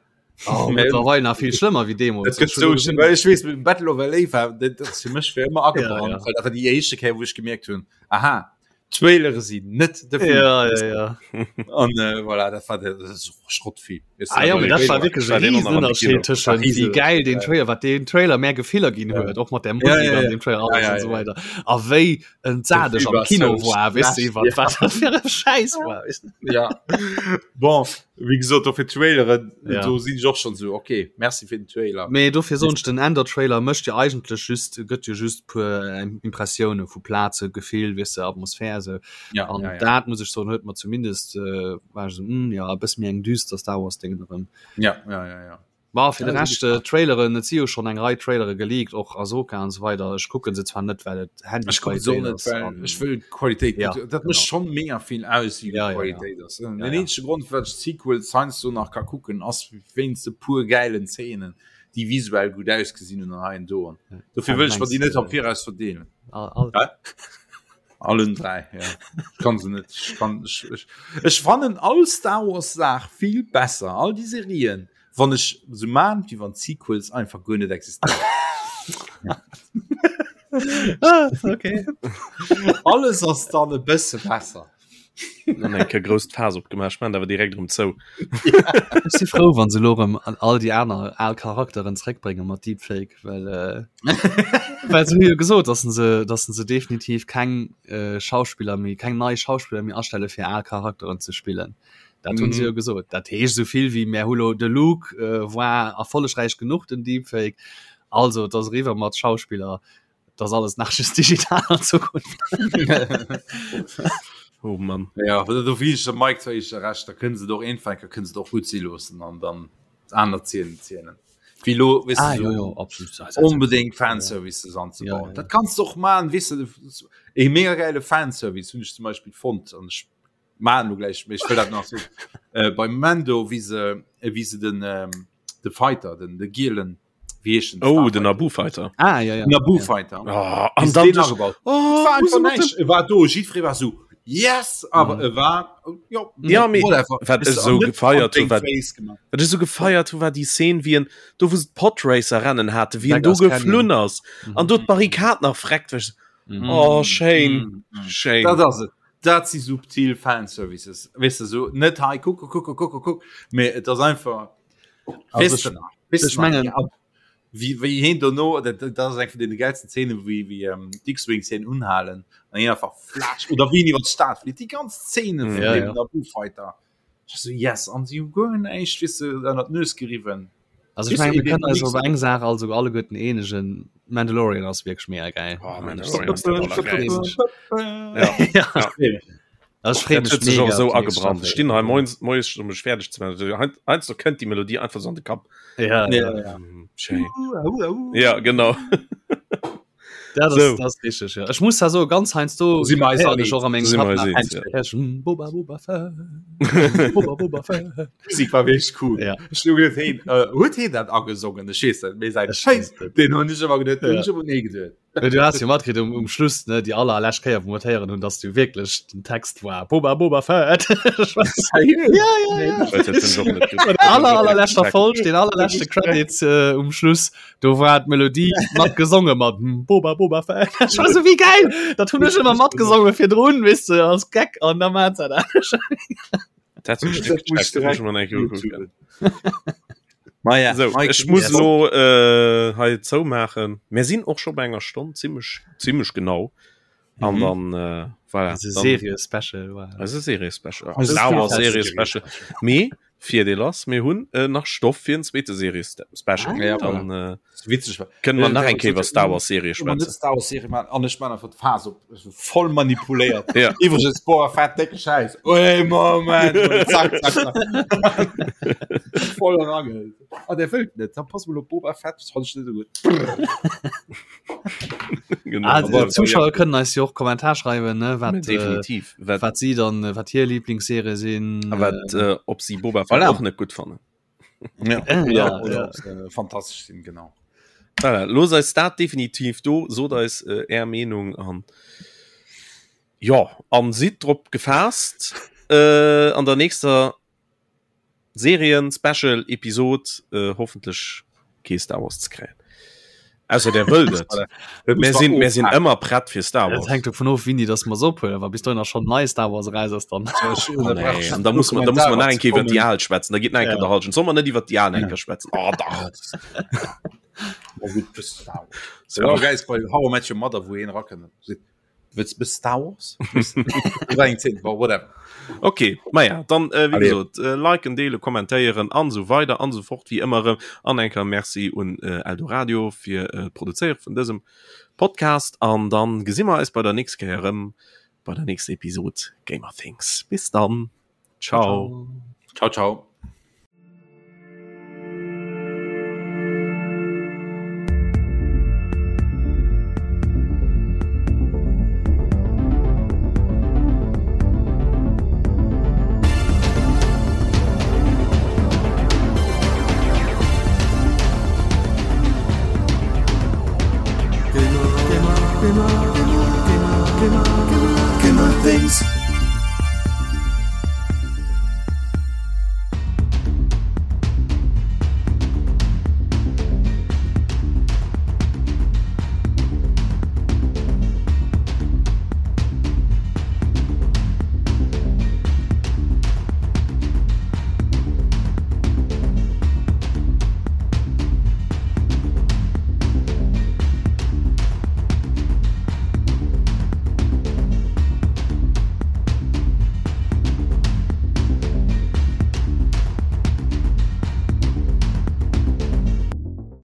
Oh, mittlerweile nach viel schlimmer wie Demo. Dat gëtt so schlimm, well ech weess, Battle of LA war dat dat ass fir mech fir ëmmer agebrannt, Ja, ja. well dat war déi éischte Kéier, wou ech gemierkt hunn, aha, Trailere sinn net de Film. Ja, ja, ja. An äh, voilà, dat war dat ass och Schrottfilm. Weißt du, Ah, ja, dat mee war dat war Trailer. wierklech war e den riesen och nach am Ënnerscheed Kino. tëschent Riese- wéi geil den Trailer, wat den Trailer mehr Gefiller ginn huet, och mat der Musik Ja, ja, an ja. dem Trailer Ja, alles ja, an so ja. weiter. A wéi entsat ech Film am war Kino so war, weess du, schlecht, iwwer ja. wat dat fir e Schäiss war. Weess du? Ja. Bon, wéi gesot, dofir Traileren, Ja. do sinn ech och schonn sou, okay, merci fir den Trailer. Mee dofir soen ech, den Endor-Trailer mécht jo eigentlech just, gëtt jo just puer Impressioune vu Plaze, Gefill, weess de, Atmosphär esou. Ja, An ja, ja. dat muss ech soen, huet mer zumindest, äh, war ech esou, hm, ja, e bësse méi eng düster Star Wars Déngen erëm. Ja, ja, ja, ja. Ma fir de Ja, Rescht äh, Traileren, et si jo schonn eng Rei Trailere geleakt, och Ahsoka an esou weider. Ech kucke se zwar net, well et Ech kucken se och Handyqualitéit net, ass well an ech wëll d'Qualitéit Ja, gutt. Dat mécht genau. schonn mega vill aus, wéi gutt Ja, ja, ja. d'Qualitéit ass. Den Ja, ja. eenzege Grond, firwat ech d'Sequels heiansdo nach ka kucken, ass wéinst e puer gäilen Zeenen, déi visuell gutt ausgesinn hunn an hei an do. An dofir Ah, du wëll ech mer mengs déi net am äh, Viraus verdeelen. all, all. Hä? Allen 3, ja. Ech kann se net. Ech kann, ech, ech, ech fannen all Star Wars Saach vill besser, all déi Serien, wann ech sou maan, wéi wann d'Sequels einfach guer net existéieren. Ah, okay. Alles ass dann e bësse besser. Dann eng Kéier grousst Faass opgemaach, ech maan awer direkt erëm zou. Ech si frou, wann se elo erëm an all déi aner al Charakteren zréckbrénge mat Deepfake, well äh, well se hu jo gesot, dass se dass se definitiv keng äh, Schauspiller méi, keng nei Schauspiller méi astelle fir al Charakteren ze spillen. Dat hunn se jo gesot. Dat heescht esou vill wéi mär hu lo de Luke äh, war erfollegräich genuch den Deepfake, also et ass eriwwer mat Schauspiller. Das alles nach just digital an Zukunft. Oh Mann. Ja, do wie ich Mike zwar ich recht, da können se doch einfach können se doch gut si loossen an dann aner Zielen zielen. Wie lo weißt ah, du, jo, so jo, absolut. unbedingt Fanservices anzubauen. Ja, ja, ja. Dat kannst du och man wis du e mega geile Fanservice hunn ich zum Beispiel fond an ich man du gleich ich will dat nach so äh, beim Mando wie se äh, wie se den ähm, de Fighter den de gielen Wie heescht den Oh, den Naboo Fighter. Ah, ja, ja. Naboo ja. Fighter. Oh, an dann den agebaut. Oh, war wo se einfach mat näischt. E war do, jiddweree war so yes, awer Mhm. e war jo, Ja, mee whatever. wat Weess ech du, sou an net gefeiert an hu, deng wat Face gemaach. wat ech sou gefeiert hu, war déi Szene, wéi en do wou se d'Podracer Rennen hate, wéi en do Beggar's Canyon. geflunn ass an do d'Barrikad nach freckt, wech Mhm. oh schéin, Mhm. Mhm. schéin. Dat ass et. Dat si subtil Fanservices. Weess du, so net hei kuck, kuck, kuck, kuck, kuck, mee et ass einfach Also Weess ech, du nach, weess ech du nach, mengen ja, wéi, wéi heen dono, dat, dat ass eng vun deene geilsten Szenen, wéi, wéi ähm, d'X-Wings hien unhalen an hien einfach flatsch oder wéi en iwwer d'Stad flitt, déi ganz Szene vun Ja, dem ja. Naboo Fighter. Ech so, yes, an si hu guer näischt, weess du, ënner d'Nues geriwwen. Also ich Weess du, meine, wir eben können eis nix- op eng Saach also alleguerten eenegen Mandalorian ass wierklech mega geil. Oh, Mandalorian ass der allergeilste. Ja. Ja. Ja. Ech freeë Dat mech huet sech och mega esou op déi nächst agebrannt. Ech Staffel. stinn hei moies, moies um mech fäerdeg ze maachen. Hein- Heiansdo kënnt déi Melodie einfach sou an de Kapp. Ja, Ja, ja. ja. Schéin. Ja, genau. Dat ass, So. dat ass richteg, ja. Ech muss da soen, ganz heiansdo Si mer eis héieren all ech och a mengem Si mer Kapp eis nach eens, ja. eng Kéier, Boba, Boba Fett, Boba, Boba Fett. Musik war wierklech cool. Ja. Ech hu geduet, hey, äh, huet heen dat agesongen? Ech weess net, mee säin Ech Scheiss, weess net. deen hunn ech ëmmer geduet, deen Ja. hunn ech ëmmer nee geduet. Well du has jo matkritt um, um Schluss ne déi aller lescht Kéier wou mer héieren hunn, dass du wierklech den Text war Boba Boba Fett. Ja, ja, ja. Aller allerleschter Folg, den allerleschte Credit äh, um Schluss, do war d'Melodie mat gesonge mat hm, Boba Boba Fett. Ech war so wéi geil, dat hunn ech ëmmer matgesonge virdrun, weess de, als Gag an da mat dat. Dat huet ech net gecheckt, dat muss ech mer nach eng Kéier ukucken. Maja, So, Mike, ech muss yes. lo äh, hei zoumaachen. Mir sinn och scho bei enger Stonn zimmlech zimmlech genau. An Mhm. dann äh, voilà, Also dann, Serie Special war. also Serie Special. Also Star Wars Serie Serie Special. Mee Virdeel ass, mir hunn äh, nach Stoff fir en zweete Serie Special. Ah, ja, dann äh, Witzeg war. kënnen mer nach eng Kéier Äh, iwwer Star Wars Serie Immer net schwätzen. Star Wars Serie machen an ech man einfach d'Phase op Ech bin voll manipuléiert. Ja. Iwwregens Boba Fett décke Schäiss. Ui Moment zack, zack, zack. voll eragehëlt. Ah der wëllt net, dann pass mol op Boba Fett, das fand ich net so gut. Genau. Ah, Aber- Zuschauer kënnen eis jo och Kommentar schreiwen ne wat äh, definitiv. Wat, wat si dann äh, wat hir Lieblingsserie sinn. a wat, äh, ob si Boba Fett Voilà. och net gutt fannen. Ja, Äh, oder, ja, oder ja. ob se äh, fantastisch sinn, genau. Voilà, looss eis dat definitiv do, sot eis äh, är Meenung an ja, an sidd drop gefaasst äh, an der nächster Serien Special Episod äh, hoffentlech kee Star Wars ze kréien. Ausser der wëllt et. Mir sinn mir sinn ëmmer prett fir Star Dat Wars. hängt dovun of, wéini dass mer se ophuelen. Wa bis dohinner schonn nei Star Wars eraus ass, dann. Oh, nee. An da muss man, da muss man nach eng Kéier iwwer déi al schwätzen. Da geet nach eng Kéier Ja. der Halschent. Soll man net iwwer déi al eng Kéier schwätzen? Oh, dach. So, ja, geil, bei How I Met Your Mother, wou een rakënnt. Wëlls bis Star Wars? War eng Zeen, bon, whatever. Okay, maja, dann äh, wéi Allez. gesot, äh, liken, deelen, kommentéieren an esou weider an esou fort wéi ëmmer erëm. An eng Kéier Merci un äh, Eldoradio fir äh, d'Produzéiere vun dësem Podcast. An dann gesi mer eis bei der nächster Kéier erëm bei der nächster Episod Gamer Things. Bis dann. Ciao. Ciao, ciao.